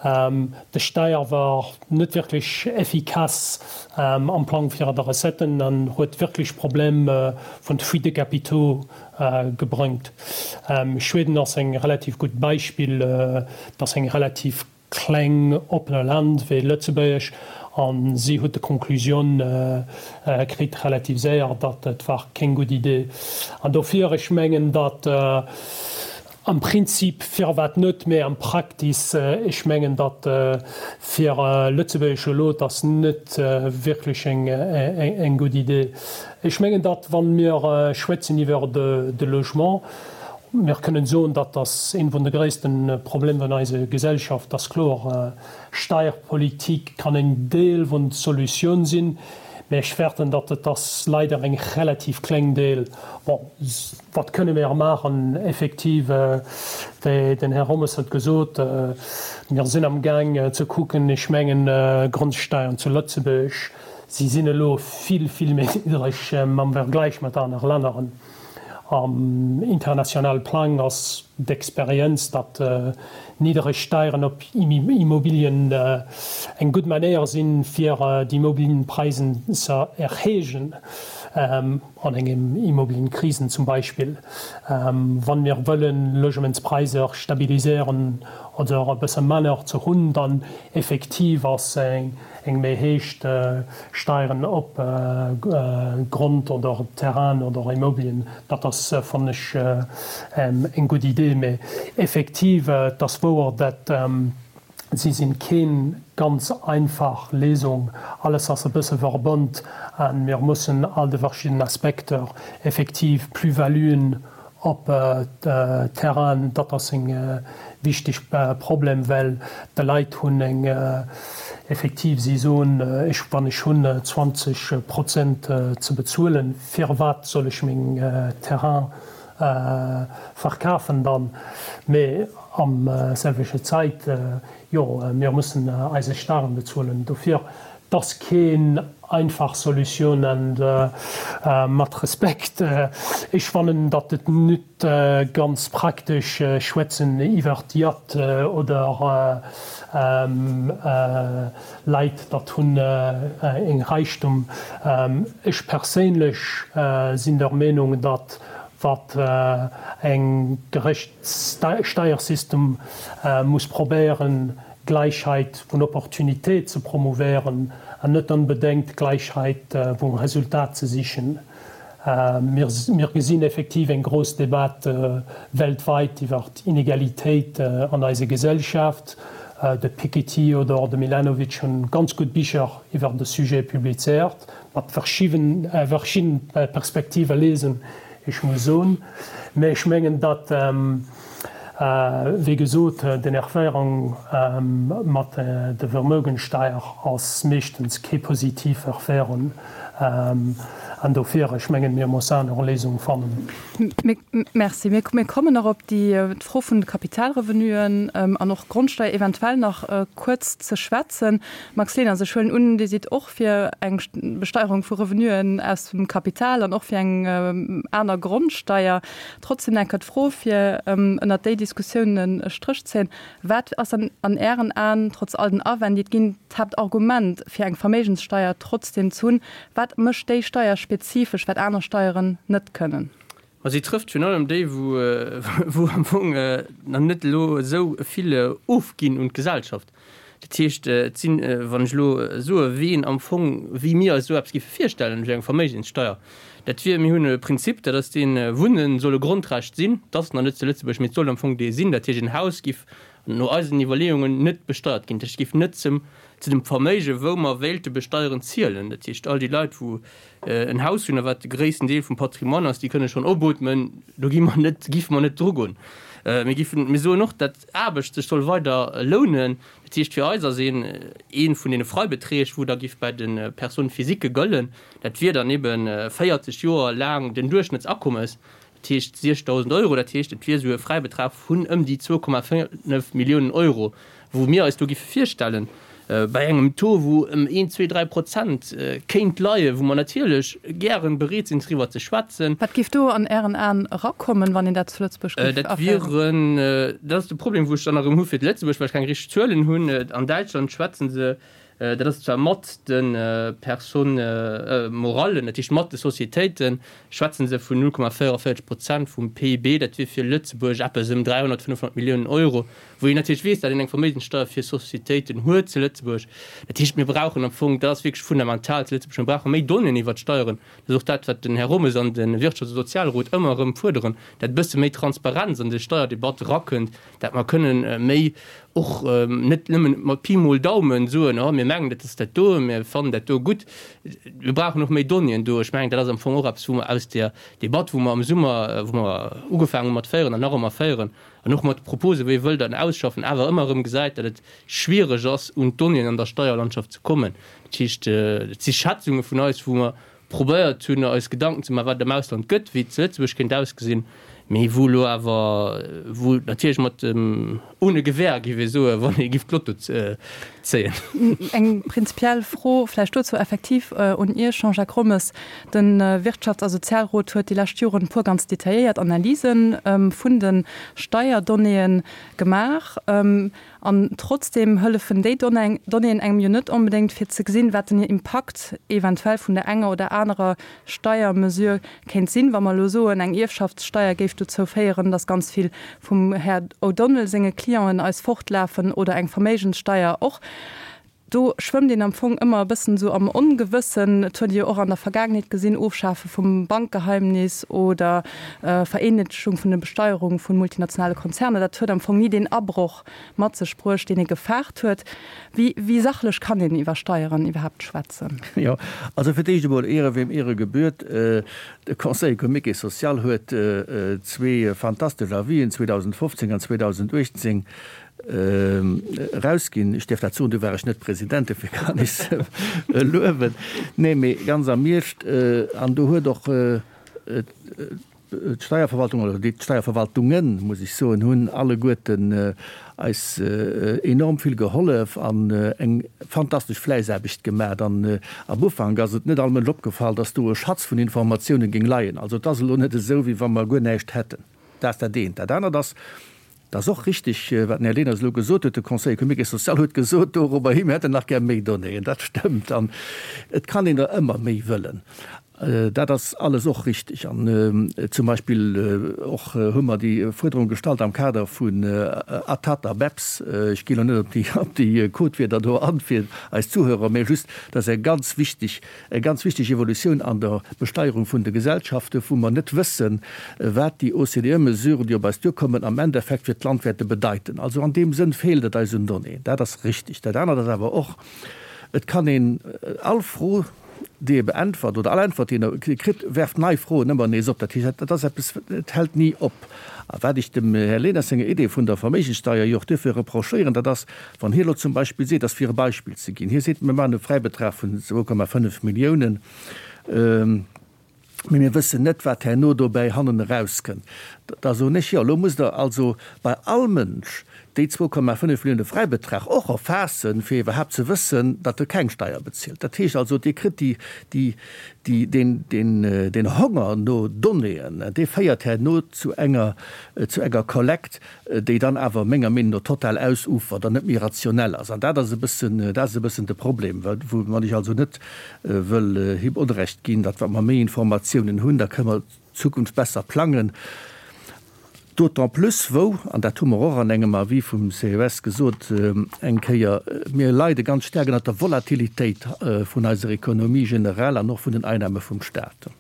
De Steier war net wierklech effikass am Plang fir der Recetten an huet wierklech Problem vun de Fuite de capitaux gebrëngt. Schweden ass eng relativ gutt Beispill, et ass eng relativ kleng oppene Land wéi Lëtzebuerg an si huet de Conclusioun kritt relativ séier, datt et war keng gutt Idee. An dofir, ech mengen, datt. Am Prinzip firwat net, mä am Praktis, ech mengen, datt fir Lëtzebuerg elo, et ass net wierklech eng gutt Idee. Ech mengen, datt wa mir schwätzen iwwer de Logement, mir kënnen soen, datt ass een vun de gréisste Problemer vun eiser Gesellschaft, ass kloer. Steierpolitik kann en Deel vun der Solutioun sinn, mä ech fäerten, datt et ass leider eng relativ kleng Deel. Bon, wat kënne mir maachen? Effektiv, wéi den Här Rommes huet gesot, mir sinn am Gaang ze kucken, ech mengen, Grondsteiern zu Lëtzebuerg, si sinn elo vill, vill méi niddreg am Vergleich mat aner Länneren. Am internationale Plang ass d'Experienz, datt niddereg Steieren op Immobilien eng gutt Manéier sinn, fir d'Immobilienpreisen ze erhéijen, an engem Immobilienkrisen zum Beispill. Wann mir wëllen Logementspreiser stabiliséieren oder e bësse manner ze hunn, dann effektiv ass eng méi héich Steieren op Grond oder Terrainen oder Immobilien, dat ass, fannen ech, eng gutt Idee. Mee effektiv, et ass wouer, dat si sinn keen ganz einfach Léisung. Alles ass e bësse verbonnt a mir mussen all de verschiddenen Aspekter, effektiv Plus-valuen Op Terrainen, dat ass en wichteg Problem, well de Leit hunn eng effektiv, si soen, ech wann ech hunn 20 Prozent ze bezuelen, firwat soll ech meng Terrain verkafen dann? Mee am selwechte Zäit, jo, mir mussen eise Staren bezuelen. Dofir, 't ass keen einfach Solutioun an mat Respekt, ech fannen datt et nüt ganz praktesch schwätzen iwwert Yacht oder Leit datt hunn eng Reichtum. Ech perséinlech sinn der Meenung datt wat eng gerecht Steiersystem muss probéieren Gläichheit vun Opportunitéit ze promouvéieren an net onbedengt Gläichheit vum Resultat ze sichen. Mir gesinn effektiv eng grouss Debat weltweit iwwer Inegalitéit an eiser Gesellschaft. De Piketty oder de Milanovic hunn ganz gutt Bicher iwwer de Sujet publizéiert, mat verschidden Perspektive lesen, ech muss soen. Mä ech mengen, datt Wéi gesot, den Erféierung mat der Vermögensteier ass meeschtens kee positiv Erféierung. An dofir, ech mengen, mir mussen aner Léisung fannen. Merci. Mir kommen nach op déi Fro vun de Kapitalrevenuen an och Grondsteier eventuell nach kuerz ze schwätzen. Max Leners, ech huelen un, Dir sidd och fir eng Besteierung vu Revenuen aus dem Kapital an och fir eng aner Grondsteier. Trotzdem enker d'Fro, fir ënnert déi Diskussioun e Stréch ze zéien, Wat ass dann an Ären Aen, trotz all den Awänn, déi et ginn, d'Haaptargument, fir eng Verméigenssteier trotzdem ze hunn? Wat mécht déi Steier spezifesch, wat aner Steieren net kënnen? Ma si trëfft virun allem déi, wou am Fong nach net elo esou vill ofginn un d'Gesellschaft. Dat heescht, et sinn, wann ech elo soe ween am Fong, wéi mir eis esou eppes géife virstellen, wéi eng Verméigenssteuer, dat wier, mir hunn e Prinzip, dat ass deen, Wunnen soll e Grondrecht sinn, dat ass nach net zu Lëtzebuerg, mee et soll am Fong dee sinn. Dat heescht, en Haus giff no eisen Iwwerleeungen net besteiert ginn, dat heescht, et giff net zum, zu dem Verméige wou mer wéilte besteieren, zielen. Dat heescht, all déi Leit wou en Haus hunn, a wat de gréissten Deel vum Patrimoine ass, déi kënne schonn opootmen, do gi mer net, giffe mer net drugoen. Mir giffen, mir soen och, dat Aarbecht sech soll weider lounen. Dat heescht, fir eis ass een ee vun deene Freibeträg, wou da giff bei de Personnes physiques gëllen, dat wier dann ebe 40 Joer laang den Duerchschnëttsakommes, dat heescht 6.000 Euro. Dat heescht, et wier esou e Fräibetrag vun ëm déi 2,5 Milliounen Euro, wou mir eis do giffe virstellen, bei engem Taux, wou ëm een, zwee, dräi Prozent kéint leien, wou mer natierlech gären bereet sinn, driwwer ze schwätzen. Wat géif do an Ären Aen erakommen, wann een dat zu Lëtzebuerg géif aféieren? Dat wieren, dat ass de Problem, wou ech dann erëm hu fir d'Lëtzebuerg, well ech keng richteg Zuelen hunn. An Däitschland schwätze se. Dat ass zwar mat de Personnes morallen, dat heescht mat de Sociétéiten, schwätze se vun 0,44 Prozent vum PIB. Dat wier fir Lëtzebuerg eppes ëm 300, 500 Milliounen Euro, wou een natierlech weess, datt een eng Verméigenssteuer fir Sociétéiten huet zu Lëtzebuerg. Dat heescht, mir brauchen am Fong, dat ass wierklech fundamental zu Lëtzebuerg, mir brauche méi Donnéeën iwwert d'Steieren. Dat ass och dat, wat den Här Rommes an de Wirtschafts a Sozialrot ëmmer erëm fuerderen, dat e bësse méi Transparenz an déi Steierdebatt erakënnt, dat mer kënnen méi och net nëmmen mat Pi mol Daumen soen, oh mir mengen dat ass dat do, mir fannen dat do gutt. Mir brauchen och méi Donnéeën do. Ech mengen, dat ass am Fong och eppes, wou mer aus där Debatt, wou mer am Summer, wou mer ugefaangen hu mat féieren an nach ëmmer féieren an och mat de Proposen, wéi ee wëll dann ausschaffen, awer ëmmer erëm gesäit, datt et schwiereg ass, un d'Donnéeën an der Steierlandschaft ze kommen. Dat heescht, et si Schätzunge vun eis, wou mer probéiert hunn eis Gedanken ze maachen, wat et am Ausland gëtt, wéi et zu Lëtzebuerg kéint ausgesinn, mee wou elo awer, wou natierlech mat dem ohne Gewähr, géif ee soen, wann ee giff d'Lotto zéien. Eng prinzipiell Fro vläicht dozou effektiv un Iech, Jean-Jacques Rommes. De Wirtschafts a Sozialrot huet déi lescht Joren e puer ganz detailléiert Analyse vun de Steierdonnéeë gemaach. An trotzdeem hëllefen déi Donnéeën engem jo net onbedéngt, fir ze gesinn, wat den Impakt eventuell vun der enger oder anerer Steiermesure kéint sinn. Wa mer elo soen, eng Ierfschaftssteier géif dozou féieren, datt ganz vill vum Här O'Donnell senge Clienten eis fortlafen oder eng Verméigenssteier och, Do schwëmmt een am Fong ëmmer e bëssen esou am Ongewëssen. Et huet ee jo och an der Vergaangenheet gesinn, Ofschafe vum Bankgeheimnis oder Vereenheetleschung vun der Besteierung vu multinationale Konzerner, dat huet am Fong ni deen Abroch mat sech bruecht, deen ee gefaart huet. Wéi, wéi sachlech kann een iwwer Steieren iwwerhaapt schwätzen? Jo, also fir d'éischt emol, Ehre wem Ehre gebührt. De Conseil économique et social huet zwee fantastesch Avisen 2015 an 2018 Erausginn. Ech däerf dat soen, du war ech net President, dofir kann ech se luewen. Nee, mee ganz am Eescht, an do huet och d'Steierverwaltung, oder déi d'Steierverwaltungen, muss ech soen, hunn alleguerten eis enorm vill gehollef an eng fantastesch Fläissaarbecht gemaach. An am Ufank ass et net all Mënsch opgefall, dass do e Schatz vun Informatiounen géing leien. Also et ass elo net esou, wéi wa mer guer näischt hätten. Dat ass dat eent. Dat anert ass, Et ass och richtig, wat den Här Leners elo gesot huet, de Conseil économique et social huet gesot dorobber hi, mir hätten nach gär méi Donnéeën. Dat stëmmt. An et kann een der ëmmer méi wëllen. Dat ass alles och richtig. An zum Beispill och hu mer déi Fuerderung gestallt am Kader vun ATAT a BEPS. Ech ginn elo net op déi, op déi Codewierder do an fir eis Zuhörer, mä just, dat ass eng ganz wichteg Eng ganz wichteg Evolutioun an der Besteierung vun de Gesellschaften, wou mer net wëssen, wat déi OCDE-Mesuren, déi op eis duerkommen, am Endeffekt fir d'Land wäerte bedeiten. Also an deem Sënn feelt et eis un Donnéeën. Dat ass richtig. Dat anert ass awer och, Et kann een all Fro, déi ee beäntwert, oder all Äntwert, déi een kritt, werft nei Froen ëmmer nees op. Dat heescht, dat ass eppes, et hält ni op. A wat ech dem Här Leners senger Idee vun der Verméigenssteuer jo och duerfir reprochéieren, dat ass, Wann hie elo zum Beispill seet, ass fir e Beispill ze ginn, hie seet, mir maachen e Fräibetrag vun 2,5 Milliounen, mee mir wëssen net, wat herno dobäi hannen erauskënnt, da soen ech, jo, elo musst Der also bei all Mënsch déi 2,5 Millioune Fräibetrag och erfaassen, fir iwwerhaapt ze wëssen, datt e keng Steier bezilt. Dat heescht also, Dir kritt déi, déi, déi, deen, deen, deen Honger no Donnéeën, dee féiert herno zu enger, zu enger Kollekt, déi dann awer menger Meenung no total ausufert an net méi rationell ass. An dat ass e bëssen, dat ass e bëssen de Problem, woumat ech also net wëll him Onrecht ginn, datt wa mer méi Informatiounen hunn, da kënne mer d'Zukunft besser plangen. D'autant plus wou, an dat hu mer och an engem Avis vum CES gesot eng Kéier, mir leide ganz staark ënnert der Volatilitéit vun eiser Économie generell an och vun den Einnahme vum Stat.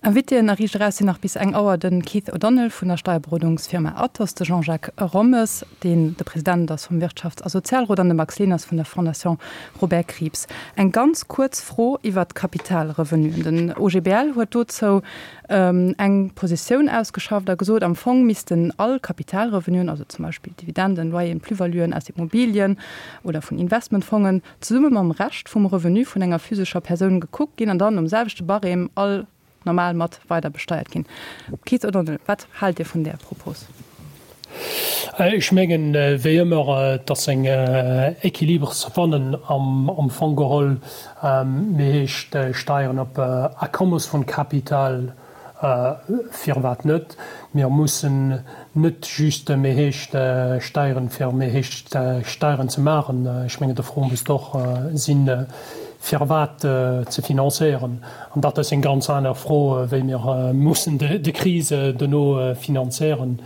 Invitéen a Riicht Eraus sinn nach bis eng Auer de Keith O'Donnell vun der Steierberodungsfirma Athos, de Jean-Jacques Rommes, deen de President ass vum Wirtschafts a Sozialrot, an de Max Leners vun der Fondation Robert Krieps. Eng ganz kuerz Fro iwwert d'Kapitalrevenuen. Den OGBL huet dozou eng Positioun ausgeschafft a gesot, am Fong missten all Kapitalrevenuen, also zum Beispill Dividenden, Loyeren, Plus-valuen aus Immobilien oder vun Investmentfongen, zesumme mam Rescht vum Revenu vun enger physescher Persoun gekuckt ginn an dann nom selwechte Barème all normal mat weider besteiert ginn. Keith O'Donnell, wat haalt Dir vun där Propos? Ech mengen, wéi ëmmer, et ass eng Équilibre ze fannen am Fong geholl. Mir heescht Steieren op Akommes vun Kapital. Firwat net? Mir mussen net just méi héich Steieren, fir méi héich Steieren ze maachen. Ech mengen, de Fro muss och sinn, firwat ze finanzéieren. An dat ass eng ganz aner Fro, wéi mir mussen de Krise dono finanzéieren.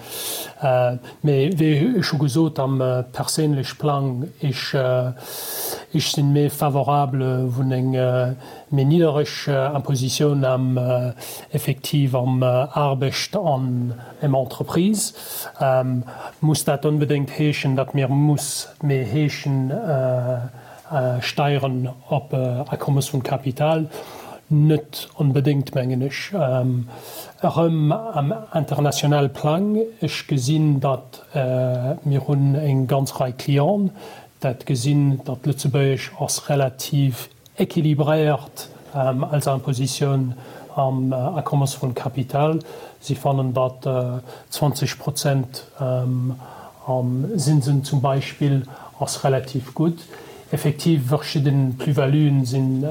Mee wéi ech scho gesot, am perséinlech Plang, ech sinn méi favorable vun eng méi niddereg Impositioun am effektiv am Aarbecht an em Entreprise. Muss dat onbedéngt heeschen, datt mir muss méi heeschen Steieren op Akommes vun Kapital? Net onbedéngt, mengen ech. Erëm am internationale Plang, ech gesinn, datt mir hunn eng ganz Rei Clienten, dat gesinn, datt Lëtzebuerg ass relativ Equilibréiert als Impositioun am Akommes vun Kapital. Si fannen, datt 20 Prozent am Zinsen zum Beispill ass relativ gutt. Effektiv, verschidden Plus-valuen sinn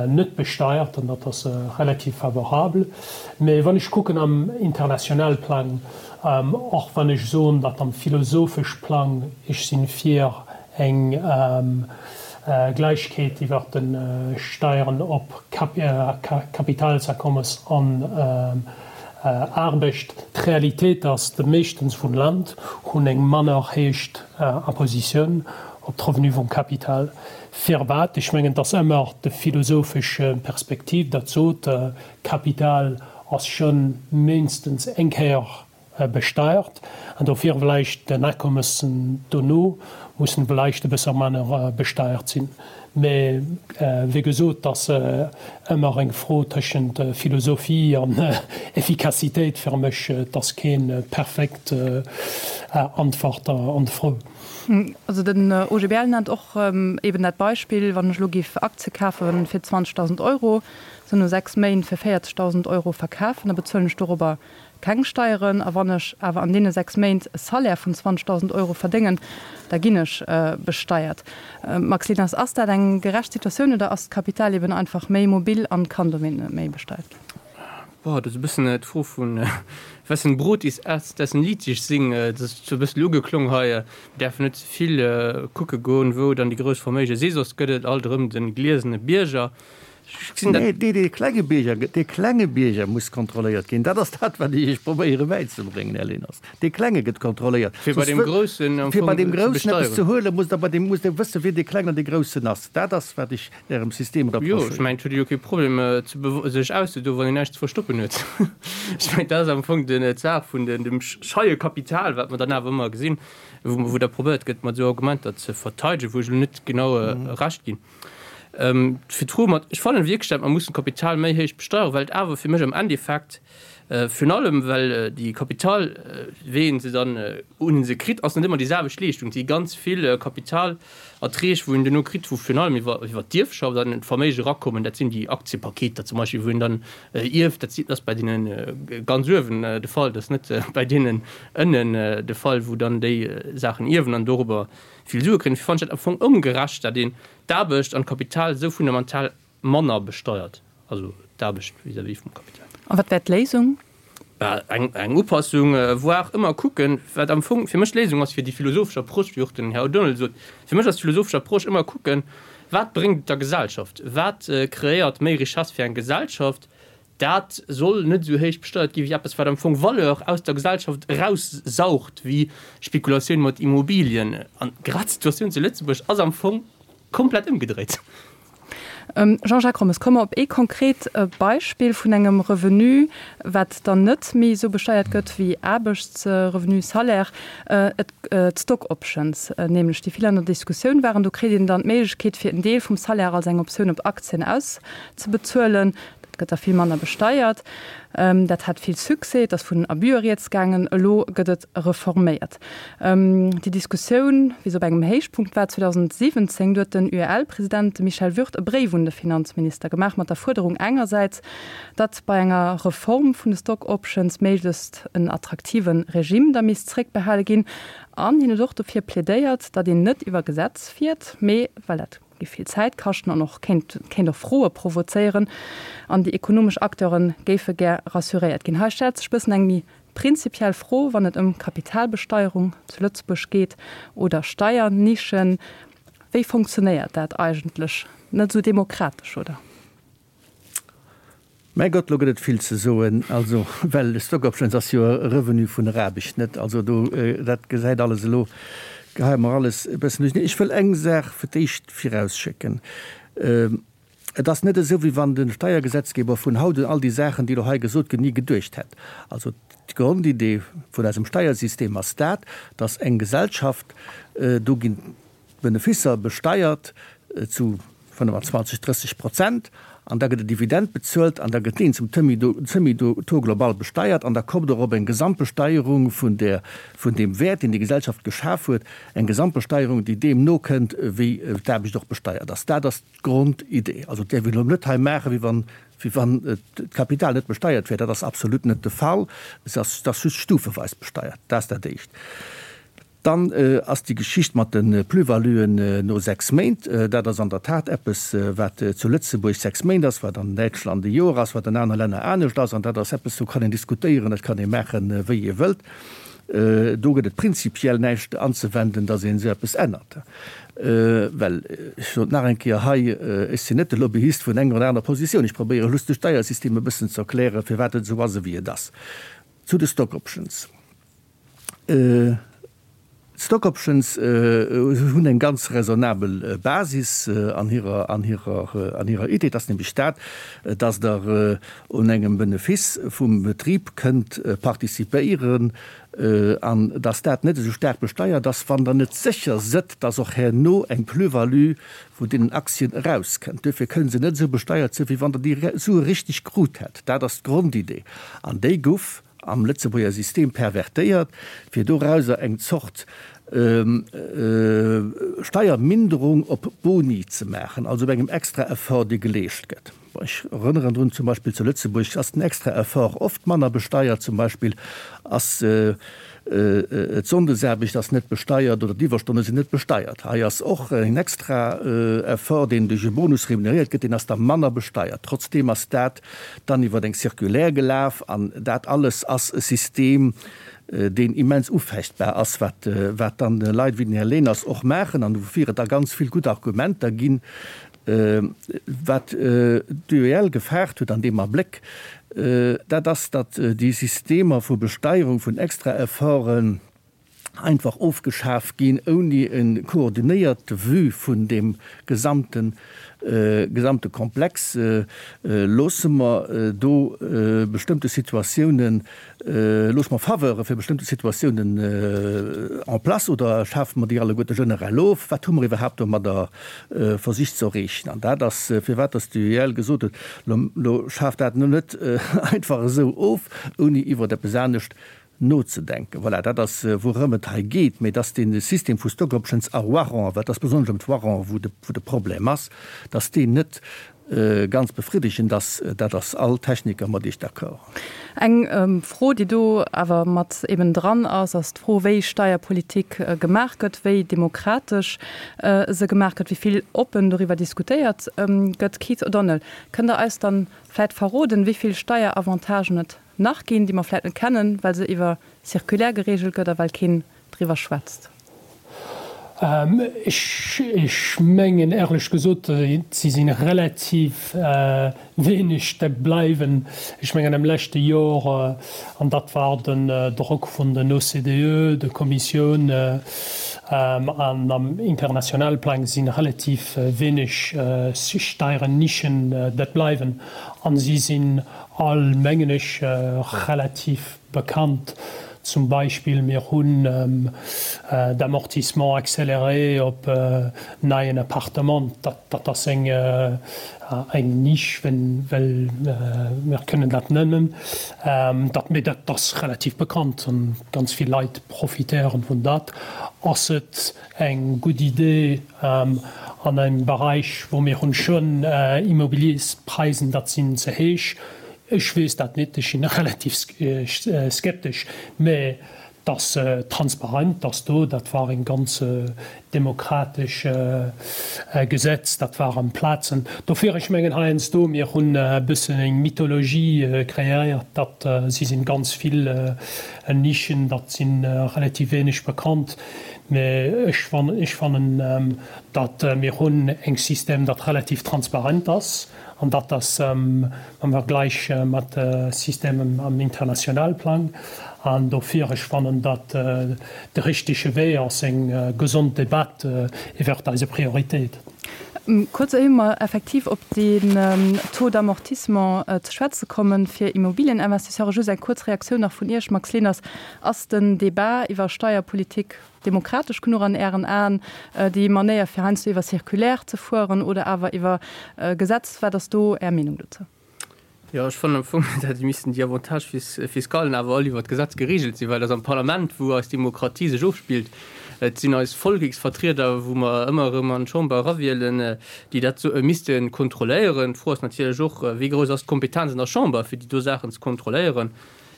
net besteiert an dat ass relativ favorabel. Mä wann ech kucken am international Plang, och wann ech soen, datt am philosophesch Plang ech sinn fir eng Gläichkeet iwwert de Steieren op Kapitalsakommes an Aarbecht. D'Realitéit ass, de meeschtens vun Land hunn eng manner héich Impositioun op d'Revenue vum Kapital. Firwat? Ech mengen, et ass ëmmer de philosophesch Perspektiv, dat sot, Kapital ass schonn méinstens eng Kéier besteiert an dofir vläicht den Akommessen dono mussen vläicht e bësse manner besteiert sinn. Mä wéi gesot, et ass ëmmer eng Fro tëschent Philosophie an Effikassitéit fir mech. Et ass kee perfekt Antwort an d'Fro. Also den OGBL nennt och eben dat Beispill, wann ech elo géif Aktie kafe fir 20.000 Euro, se no 6 Méint fir 40.000 Euro verkafen, da bezuelen ech dorobber Keng Steieren, a wann ech awer an deene 6 Méint e Salaire vun 20.000 Euro verdéngen, da ginn ech besteiert. Max Lieners, Ass dat eng gerecht Situatioun oder ass d'Kapital eben einfach méi mobil an kann dowéint net méi besteiert ginn? Boah, dat ass e bëssen d'Fro vun Wessen Brot ist erst, dessen Lied ich sing. Dat ass sou e bëssen ugeklong hei. Mir däerfen net ze vill kucke goen, wou dann déi grouss Verméige si, soss gëtt et alt erëm de gliesene Bierger. Nee, dee klenge Bierger, dee klenge Bierger muss kontrolléiert ginn. Dat ass dat, wat ech Iech probéiere bäizebréngen, Här Leners. Dee Klenge gëtt kontrolléiert. Fir bei deem Groussen am Fir bei deem Groussen eppes ze huelen, musst Der bei deem, musst Der wëssen, wien dee Klengen an dee Groussen ass. Dat ass, wat ech Ärem System reprochéieren. Jo, ech mengen, et huet ee jo kee Problem, sech auszedoen, wann een näischt ze verstoppen huet. Ech mengen, dat ass am Fong d'Saach vun dem scheie Kapital, wat mer dann awer ëmmer gesinn, wou da probéiert gëtt, mat esou Argumenter ze verteidegen, wou ech elo net genau Recht ginn. Fir d'Fro mat, ech fannen wierklech, dat mer mussen d'Kapital méi héich besteieren, well et awer fir mech am Endeffekt, virun allem well déi Kapital, wéi een se dann un se kritt, ass net ëmmer déi selwecht Leeschtung. Et si ganz vill Kapitalerträg, wou een duerno kritt, wou virun allem iwwer iwwer d'Ierfschaft an d'Verméige erakommen. Dat sinn déi Aktiepaketer zum Beispill, wou een dann ierft. Dat ass bei deene ganz uewen de Fall, dat ass net bei deenen ënnen de Fall, wou dann déi Saachen ierwen an dorobber vill Sue kréien. Dofir fannen ech dat am Fong ongerecht, dat een d'Aarbecht an d'Kapital esou fundamental manner besteiert, also d'Aarbecht vis-à-vis vum Kapital. A wat wär d'Léisung? Bah, eng, eng Upassung, voire ëmmer kucken, wat am Fong fir mech d'Léisung ass fir déi philosophesch Approche, wéi och den Här O'Donnell sot, fir mech ass d'philosophesch Approche ëmmer kucken, wat bréngt et der Gesellschaft, wat kreéiert méi Richesse fir eng Gesellschaft, Dat soll net esou héich besteiert gi wéi eppes, wat am Fong Valeur aus der Gesellschaft eraussaugt, wéi Spekulatioun mat Immobilien. An grad d'Situatioun zu Lëtzebuerg ass am Fong komplett ëmgedréit. Jean-Jacques Rommes, komme mer op ee konkret Beispill vun engem Revenu, wat dann net méi esou besteiert gëtt wéi Aarbechtsrevenu, Salaire, d'Stock Options nämlech, déi vill an der Diskussioun waren. Do kritt een dann d'Méiglechkeet, fir en Deel vum Salaire als eng Optioun op Aktien auszebezuelen. Dat gëtt da vill manner besteiert. Dat hat vill Succès, et ass vun Abuse rieds gaangen. Elo gëtt et reforméiert. Déi Diskussioun, wéi se op engem Héichpunkt war 2017, du huet den UEL-President, de Michel Würth, e Bréif un de Finanzminister gemaach mat der Fuerderung engersäits, datt bei enger Reform vun de Stock Options méiglechst en attraktive Regime da misst zréckbehale ginn. An hien huet och dofir plädéiert, datt een net iwwer Gesetz fiert, mee, well dat. géif vill Zäit kaschten an och kéint kéint och Froe provozéieren. An déi ekonomesch Acteure géife gär rassuréiert ginn. Hei stellt sech bëssen eng méi prinzipiell Fro, wann et ëm Kapitalbesteierung zu Lëtzebuerg geet oder Steiernischen. Wéi funktionéiert dat eigentlech? Net esou demokratesch, oder? Mäi Gott, lo gëtt et vill ze soen. Also, well Stock Options ass jo e Revenu vun der Aarbecht, net? Also do, dat gesäit alles elo, geheie mer alles e bëssen duercherneen. Ech wëll eng Saach fir d'éischt virausschécken. Et ass net esou, wéi wann de Steiergesetzgeber vun haut un all déi Saachen, déi elo hei gesot ginn, ni geduecht hätt. Also d'Grondidee vun eisem Steiersystem ass dat, dass eng Gesellschaft, do ginn d'Benefisser besteiert zu 25, 30 Prozent an da gëtt e Dividend bezuelt an da gëtt deen zum Semi-Taux global besteiert an da kommt och op eng Gesamtbesteierung vun där, vun deem Wäert, deen déi Gesellschaft geschaf huet, eng Gesamtbesteierung, déi deem nokënnt, wéi d'Aarbecht och besteiert ass. Dat ass d'Grondidee. Also et däerf een elo net hei maachen, wéi wann, wéi wann d'Kapital net besteiert wär. Dat ass absolut net de Fall. Et ass, et ass just stufeweis besteiert. Dat ass dat Éischt. Dann ass déi Geschicht mat de Plus-valuen no 6 Méint, dat ass an der Tat eppes, wat zu Lëtzebuerg 6 Méint ass, wat an Däitschland e Joer ass, wat an anere Länner anescht ass. An dat ass eppes, do kann een diskutéieren, dat kann ee maachen, wéi ee wëllt. Do gëtt et prinzipiell näischt anzewenden, datt een esou eppes ännert. Well, ech soen et nach eng Kéier hei, ech sinn net de Lobbyist vun enger oder anerer Positioun, ech probéiere just de Steiersystem e bëssen ze erklären, firwat et esou ass, ewéi et ass. Zu de Stock Options. D'Stock Options hunn eng ganz raisonnabel Basis an hirer, an hirer, an hirer Idee. Et ass nämlech dat, dass Der un engem Benefiss vum Betrib kënnt participéieren an dass dat net esou staark besteiert ass, wann Der net sécher sëtt, dass och herno eng Plus-value vun deenen Aktien erauskënnt. Duerfir kënne se net esou besteiert sinn, wéi wann Der déi Sue richteg krut hätt. Dat ass d'Grondidee an déi guff am Lëtzebuerger System pervertéiert, fir dorauser eng Zort Steierminderung op Boni ze maachen, also op engem extra Effort, dee geleescht gëtt. Ech erënneren drun, zum Beispill zu Lëtzebuerg ass den extra Effort oft manner besteiert, zum Beispill ass d'Sonndesaarbecht ass net besteiert oder d'Iwwerstonne sinn net besteiert. Hei ass och en extra Effort, deen duerch e Bonus remuneréiert gëtt, deen ass da manner besteiert. Trotzdeem ass dat dann iwwer eng Circulaire gelaf an dat alles ass e System, deen immens ufechtbar ass, wat wat dann Leit wéi den Här Leners och maachen an woufir et da ganz vill gutt Argumenter ginn. Wat d'UEL gefaart huet an deem Abléck, dat ass, datt déi Systemer vu Besteierung vun Extraefforten, einfach ofgeschaf ginn, ouni e koordinéierte Vue vun deem gesamte gesamte Komplex. Loosse mer do bestëmmte Situatiounen, loosse mer Faveure fir bestëmmte Situatiounen en place oder schafe mer déi alleguerte generell of? Wat hu mer iwwerhaapt domadder versicht ze erreechen? An dat ass, firwat dass d'UEL gesot huet, Lo schaaft dat net einfach esou of, ouni iwwert eppes anescht nozedenken. Voilà, dat ass, wourëm et hei geet. Mä dass dee System vu Stock Options a Warrant, well et ass besonnesch ëm d'Warrant, wou de, wou de Problem ass, dass deen net ganz befriddegend ass, dat ass all Techniker mat Iech d'accord. Eng Fro, déi do awer mat eben dran ass, ass d'Fro, wéi Steierpolitik gemaach gëtt, wéi demokratesch se gemaach gëtt, wéi vill oppen doriwwer diskutéiert gëtt. Keith O'Donnell, kënnt Der eis dann vläicht verroden, wéi vill Steieravantagen et nach ginn, déi mer vläit net kennen, well se iwwer Circulaire geregelt gëtt a well keen driwwer schwätzt? Ech mengen éierlech gesot, si si relativ wéineg, dat bleiwen. Ech mengen am leschte Jor, an dat war den Drock vun den OCDE, der Kommissioun an am internationale Plang, si relativ wéineg Steiernischen, dat bleiwen. An si sinn All, mengen ech, relativ bekannt. Zum Beispill, mir hunn d'Amortissement accéléré op neien Appartement. Dat ass eng Nisch, well mir kënnen dat nennen. Mee dat ass relativ bekannt an ganz vill Leit profitéieren vun dat. Ass et eng gutt Idee an engem Bereich, wou mir hunn schonn Immobiliëspreisen, dat sinn ze héich? Ech weess dat net, ech sinn relativ skeptesch, mä. Dass transparent ass do, dat war eng ganz demokratesch Gesetz, dat war am Plazen. Dofir, ech mengen heiansdo, mir hunn e bëssen eng Mythologie kreéiert, datt si sinn ganz vill Nischen, dat si relativ wéineg bekannt. Mä ech ech fannen, datt mir hunn eng System, dat relativ transparent ass. An dat ass am Vergleich mat Systemen am internationale Plang. An dofir, ech fannen, datt de richtege Wee ass eng gesond Debatt iwwert eise Prioritéiten. Kuerz éier mer effektiv op den Taux d'amortissement ze schwätze kommen fir Immobilieninvestisseuren, just eng kuerz Reaktioun nach vun Iech, Max Leners. Ass den Débat iwwer Steierpolitik Demokratesch genuch an Ären Aen, déi Manéier fir heiansdo iwwer Circulaire ze fueren oder awer iwwer Gesetz? Wat ass do Är Meenung dozou? Jo, ech fannen am Fong, datt missten déi Avantages fiscalen awer all iwwer d'Gesetz geregelt sinn, well et ass am Parlament, wou eis Demokratie sech ofspillt. Et sinn eis Volleksvertrieder, wou mer ëmmer erëm an d'Chamber erawielen, déi dat misste kontrolléieren. D'Fro ass natierlech och, Wéi grouss ass d'Kompetenz an der Chamber, fir déi do Saachen ze kontrolléieren?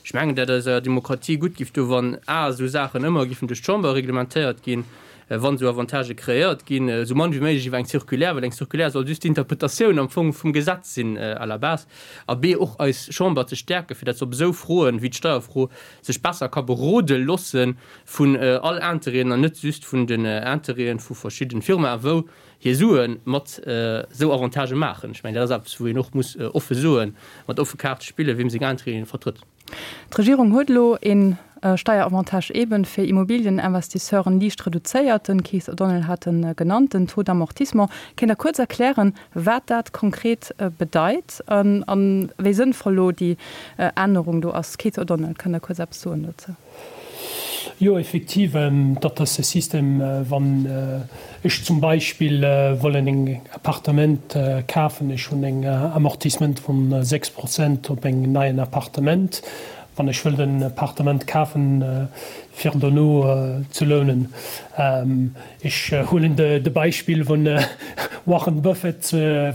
Ech mengen, dat eiser Demokratie gutt giff doen, wann a esou Saachen ëmmer giffen duerch d'Chamber reglementéiert ginn, wann esou Avantagë kreéiert ginn, esou mann wéi méiglech iwwer eng Circulaire, well eng Circulaire soll just d'Interpretatioun am Fong vum Gesetz sinn à la base, a b och eis Chamber ze stäerken, fir dat se op esou Froen wéi d'Steierfro sech besser ka berode loosse vun all Intérêten an net just vun den Intérêten vu verschidden Firmaen, wou hir Sue mat esou Avantagë maachen. Ech mengen, dat ass eppes, wou een och muss offe soen, mat offe Kaarte spillen, wiem seng Intérêten ee vertrëtt. D'Regierung huet elo ee Steieravantage eeben fir Immobilieninvestisseuren liicht reduzéiert. Den Keith O'Donnell hat e genannt, den Taux d'amortissement. Kéint Der kuerz erklären, wat dat konkret bedeit a wéi sënnvoll elo déi Ännerung do ass? Keith O'Donnell, kënnt Der kuerz eppes soen dozou? Jo, effektiv, dat ass e System, wann ech zum Beispill wollen eng Appartement kafen, ech hunn eng Amortissement vun 6 Prozent op eng neien Appartement, wann ech wëll den Appartement kafen, fir dono ze lounen. Ech huelen de Beispill vun Warren Buffett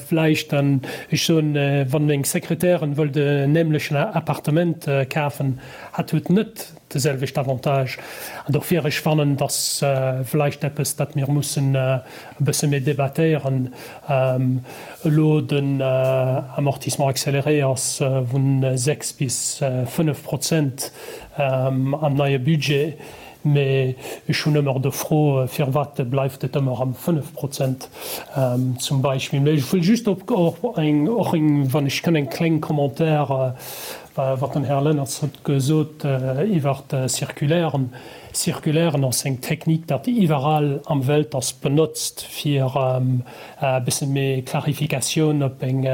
vläicht an ech soen, wann meng Sekretärin wëllt en nämlechen Appartement kafen, hat huet net de selwecht Avantage. An dofir, ech fannen, et ass vläicht eppes, dat mir mussen e bësse méi debattéieren. Elo den Amortissement accéléré ass vun 6 bis 5 Prozent am neie Budget. Mee ech hunn ëmmer de Fro, firwat bleift et ëmmer am 5 Prozent zum Beispill. Mee ech wëll just op och eng, och eng, wann ech kënn, eng kleng Commentaire, wat den Här Leners huet gesot iwwert Circulairen. Circulairen ass eng Technique, dat iwwerall am Welt ass benotzt, fir e bësse méi Clarificatioun op eng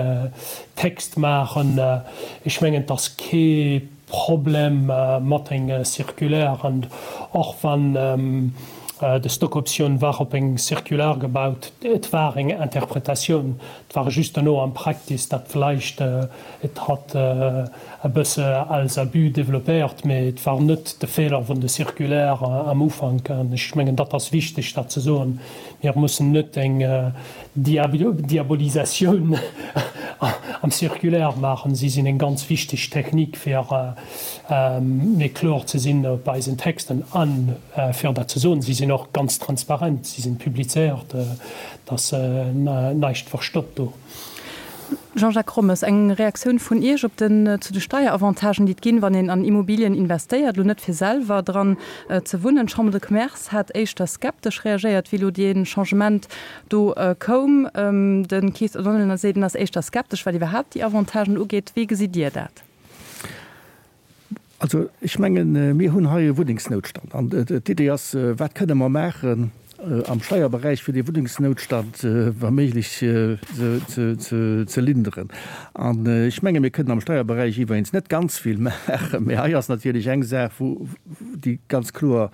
Text maachen. Ech mengen, et ass kee Problem mat eng Circulaire, an och wann de Stockoptioun war op eng Circulaire gebaut, et war eng Interpretatioun, et war just dono am Practice, dat vläicht et hat e bësse als Abus développéiert, mee et war net de Feeler vun de Circulaire am Ufank. An ech mengen, dat ass wichteg, dat ze soen. Mir mussen net eng Diabolisatioun am Circulaire maachen. Si sinn eng ganz wichteg Technik, fir méi kloer ze sinn op eisen Texten. A fir dat ze soen, si sinn och ganz transparent, si sinn publizéiert, et ass näischt verstoppt do. Jean-Jacques Rommes, eng Reaktioun vun Iech op den, zu de Steieravantagen, déi et ginn, wann een an Immobilien investéiert, elo net fir selwer dran ze wunnen. D'Chambre de Commerce hat éischter skeptesch reagéiert, wéi elo dee Changement do koum. De Keith O'Donnell seet, en ass éischter skeptesch, wat iwwerhaapt déi Avantagen ugeet. Wéi gesitt Dir dat? Also ech mengen, mir hunn hei e Wunnengsnoutstand. An d'Idee ass, Wat kënne mer maachen am Steierberäich, fir dee Wunnengsnoutstand wa méiglech ze linderen? An ech menge mir kënnen am Steierberäich iwweregens net ganz vill maachen, mä hei ass natierlech eng Saach, wou déi ganz kloer.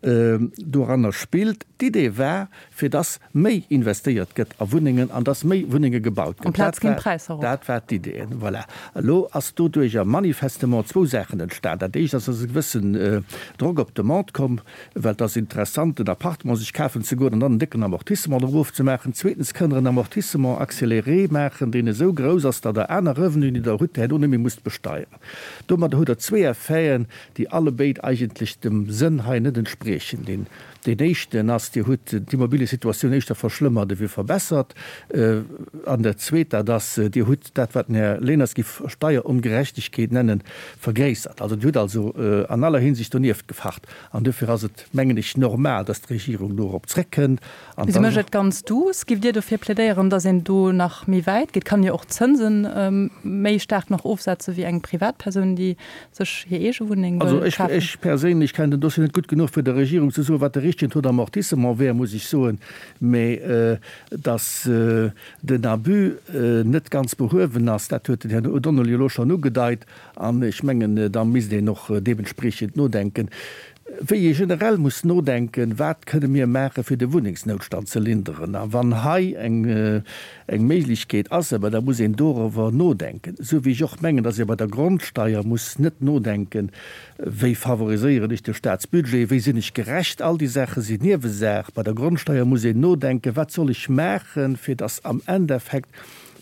Doranner spillt. D'Idee war, fir dass méi investéiert gëtt a Wunnengen an dass méi Wunnenge gebaut gëtt. Amplaz ginn d'Präisser erop. Dat war d'Idee. Voilà. Elo ass doduerjer manifestement zwou Saachen entstan. Dat éischt ass, dass e gewëssen Drock op d'Demande komm, well et ass interessant, en Appartement sech kafen ze goen an dann en décken Amortissement drop ofzemaachen. Zweetens kënnt Der en Amortissement accéléré maachen, deen esou grouss ass, datt Der aner Revenuen, déi Der hutt, herno net méi musst besteieren. Domadder hutt Der zwee Effeten, déi allebéid eigentlech dem Sënn hei net entspriechen. Deen Deen éischten ass, Dir hutt d'Immobiliesituatioun éischter verschlëmmert ewéi verbessert. An dat Zweet, dat ass, Dir hutt dat, wat den Här Leners géif Steierongerechtegkeet nennen, vergréissert. Also Dir hutt also an aller Hinsicht donieft gefacht. An duerfir ass et, mengen ech, normal, dass d'Regierung dorop zréckkënnt. An Si mécht et ganz duuss. Giff Dir dofir plädéieren, dass een do nach méi wäit geet? Kann jo och d'Zënse méi staark nach ofsetze wéi eng Privatpersoun, déi sech hir eege Wunneng wëll kafen. Also ech perséinlech kennen den Dossier net gutt genuch, fir der Regierung ze soen, wat de richtegen Taux d'amortissement wär, muss ech soen. Mä dass den Abus net ganz behuewen ass, dat huet den Här O'Donnell jo elo schonn ugedeit. An ech mengen, da misst een och deementspreechend nodenken. Wéi ee generell muss nodenken, wat kënne mir maachen, fir de Wunnengsnoutstand ze linderen. A wann hei eng eng Méiglechkeet ass, awer da muss een doriwwer nodenken, esou wéi ech och mengen, datt ee bei der Grondsteier muss net nodenken, wéi favoriséieren ech de Staatsbudget, wéi sinn ech gerecht, all déi Saache sinn Niewesaach. Bei der Grondsteier muss een nodenken, wat soll ech maachen, fir datt am Endeffekt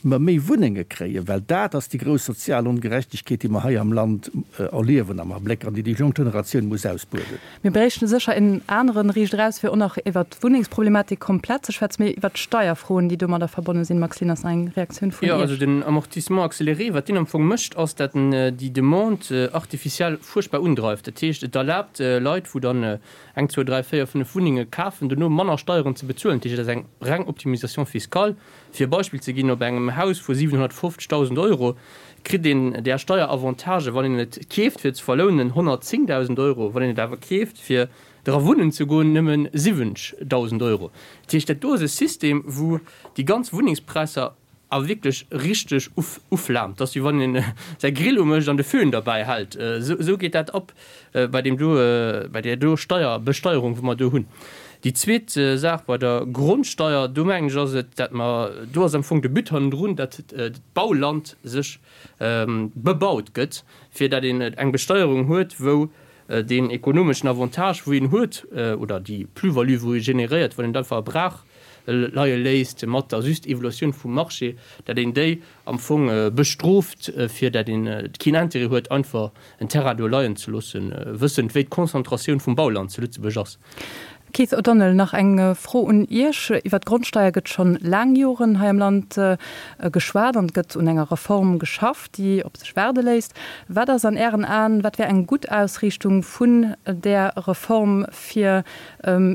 mer méi Wunnenge kréien, well dat ass déi grouss sozial Ongerechtegkeet, déi mer hei am Land erliewen am Abléck an déi déi jonk Generatioun muss ausbueden. Mir bréichten sécher en aneren Riicht eraus, fir och nach iwwert d'Wunnengsproblematik komplett ze schwätzen, mee iwwert d'Steierfroen, déi domadder verbonne sinn. Max Lieners, nach eng Reaktioun vun Jo, also Iech? den Amortissement accéléré, wat deen am Fong mécht, ass, dat en déi Demande artificielle fuerchtbar undreift. Dat heescht, et erlaabt Leit, wou dann eng, zwou, dräi, véier, fënnef Wunnenge kafen, dono manner Steieren ze bezuelen. Dat heescht, et ass eng reng Optimisation fiscale. Fir e Beispill ze ginn, Op engem Haus vu 750.000 Euro kritt een där Steieravantagen, wann een et keeft fir ze verlounen, 110.000 Euro, wann een et awer keeft fir dra wunnen ze goen, nëmme 70.000 Euro. Dat heescht, dat do ass e System, wou déi ganz Wunnengspräisser a wierklech richteg uflaamt. Dat ass wéi wann een säi Grill umécht an de Föhn derbäi hält. Esou geet dat ab. bei deem do, bei där do Steier, Besteierung, wou mer do hunn. Déi zweet Saach bei der Grondsteier, do mengen ech ass et, dat mer, do ass am Fong de But hannendrun, dat d'Bauland sech bebaut gëtt, fir dat een eng Besteierung huet, wou deen ekonomeschen Avantage, wou een huet, oder déi Plus-value, wou ee generéiert, wann een et einfach a Brach leie léisst, mat der just Evoluatioun vum Marché, dat een déi am Fong bestrooft, fir dat een keen Intérêt huet, einfach en Terrain do leien ze loossen, wëssend wéi d'Konzentratioun vum Bauland zu Lëtzebuerg ass. Keith O'Donnell, nach eng Fro un Iech. Iwwer d'Grondsteier gëtt schonn laang Joren hei am Land geschwat an et gëtt un enger Reform geschafft, déi op sech waarde léisst. Wat ass an Ären Aen, wat wär eng gutt Ausriichtung vun där Reform, fir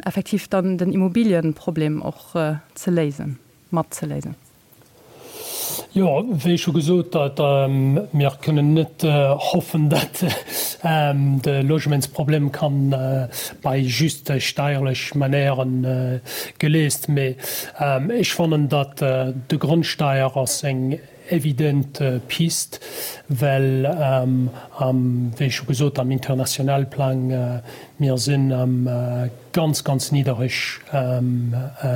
effektiv dann den Immobilienproblem och ze léisen, mat ze léisen? Jo, wéi scho gesot, mir kënnen net hoffen, datt de Logementsproblem kann bei just steierlech Manéieren geléist. Mee ech fannen, datt de Grondsteier ass eng evident Pist, well am, wéi scho gesot, am internationale Plang, mir sinn am ganz, ganz niddereg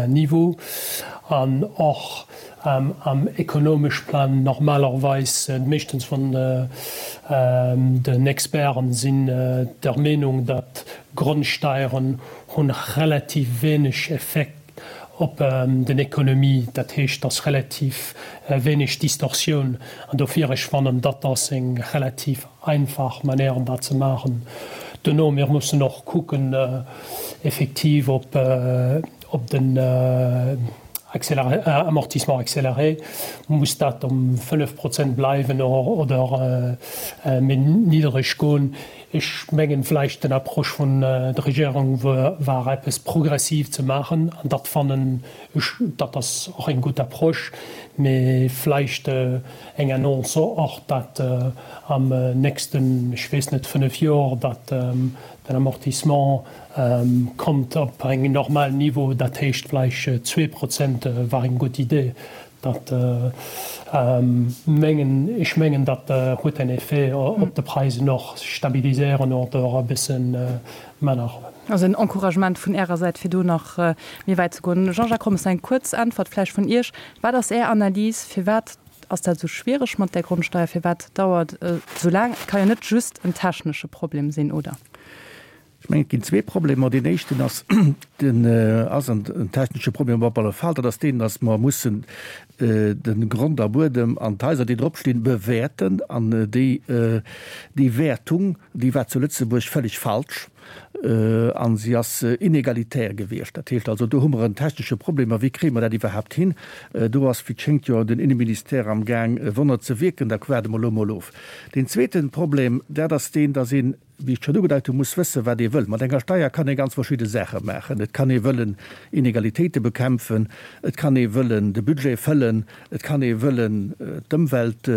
Niveau an och am ekonomesch Plan normalerweis, meeschtens vun den Experten sinn der Meenung, datt Grondsteieren hunn relativ wéineg Effekt op den Ekonomie, dat heescht, dass relativ wéineg Distorsioun an dofir ech fannen, datt ass eng relativ einfach Manière dat ze maachen. Duerno, mir mussen och kucken effektiv op op den Amortissement accéléré, muss dat um 5 Prozent bleiwen oder méi niddereg goen. Ech mengen vläicht den Approche vun der Regierung war eppes progressiv ze maachen an dat fannen ech, dat ass och eng gutt Approche, mee vläicht eng Annonce och, dat am nächsten, ech weess net, 5 Joer, dat den Amortissement kommt op eng normal Niveau, dat heescht vläicht 2 Prozent war eng gutt Idee. Dat mengen, ech mengen, dat huet en Effet op de Preisen och, stabiliséieren oder e bësse manner. Also en Encouragement vun Ärer Säit, fir do nach méi wäit ze goen. Jean-Jacques Rommes, eng kuerz Äntwert vläicht vun Iech. Wat ass Är Analys, firwat ass dat esou schwiereg mat där Grondsteier? Firwat dauert et esou laang? Et ka jo net just en technesche Problem sinn, oder? Ech mengen, et ginn zwee Problemer. Deen éischten ass, den ass en technesche Problem op alle Fall, dat ass deen, datt mer mussen de Grond a Buedem an d'Haiser, déi drop stinn, bewäerten. An déi, déi Wäertung, déi war zu Lëtzebuerg völlig falsch a si ass inegalitär gewiescht. Dat heescht also, do hu mer en technesche Problem. A wéi kréie mer dat iwwerhaapt hin? Do ass, wéi et schéngt, jo den Inneministère amgaang, Wonner ze wierken. Da waarde mer elo emol of. Deen zweete Problem, dat ass deen, datt een, wéi ech schonn ugedeit hunn, muss wëssen, wat ee wëll. Mat enger Steier kann ee ganz verschidde Saache maachen. Et kann ee wëllen Inegalitéite bekämpfen, et kann ee wëllen de Budget fëllen, et kann ee wëllen d'Ëmwelt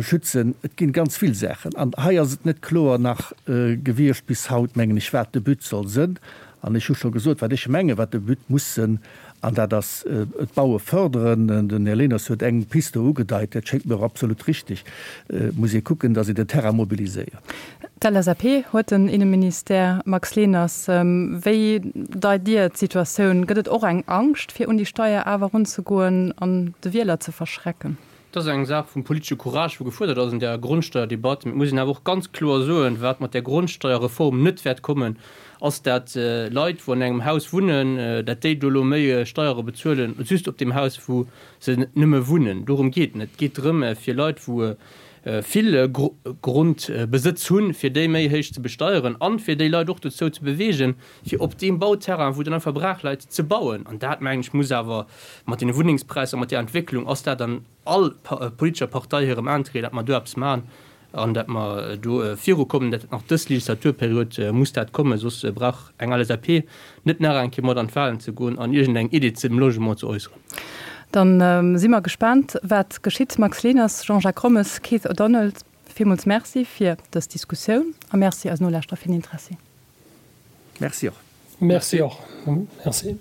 schützen. Et ginn ganz vill Saachen. An hei ass et net kloer nach gewiescht bis haut, mengen ech, wat de But soll sënn. An ech hu scho gesot, wat ech mengen, wat de But muss sënn, an dat ass d'Baue förderen. Den Här Leners huet eng Piste do ugedeit, dat schéngt mir och absolut richtig. Et muss ee kucken, datt een den Terrain mobiliséiert. D'LSAP huet den Inneministère. Max Leners, wéi deit Dir d'Situatioun? Gëtt et och eng Angscht, fir un déi Steier awer erunzegoen an de Wieler ze verschrecken? Et ass eng Saach vum politesche Courage, wou gefuerdert ass an där Grondsteuerdebatt. Mee et muss een awer och ganz kloer soen, wat mat där Grondsteuerreform net wäert kommen, ass dat Leit, wou an engem Haus wunnen, dat déi do elo méi Steiere bezuelen, just op deem Haus, wou se nëmme wunnen. Dorëm geet et net. Et geet drëm, fir Leit, wou vill Grondbesëtz hunn, fir déi méi héich ze besteieren an fir déi Leit och dozou ze bewegen, fir op deem Bauterrain, wou dann einfach brach läit, ze bauen. An dat, mengen ech, muss awer mat deene Wunnengspräisser, mat där Entwécklung ass dat an all politescher Partei hirem Intérêt, datt mer do eppes maachen an datt mer do virukommen. Dat nach dës Legislaturperiod muss dat kommen, soss brauch eng LSAP net nach eng Kéier mat an d'Wahlen ze goen an iergendeng Idee zum Logement ze äusseren. Dann si mer gespaant, wat geschitt. Max Leners, Jean-Jacques Rommes, Keith O'Donnell, villmools Merci fir dës Diskussioun a Merci eisen Nolauschterer fir den Interessi. Merci och. Merci och. Merci.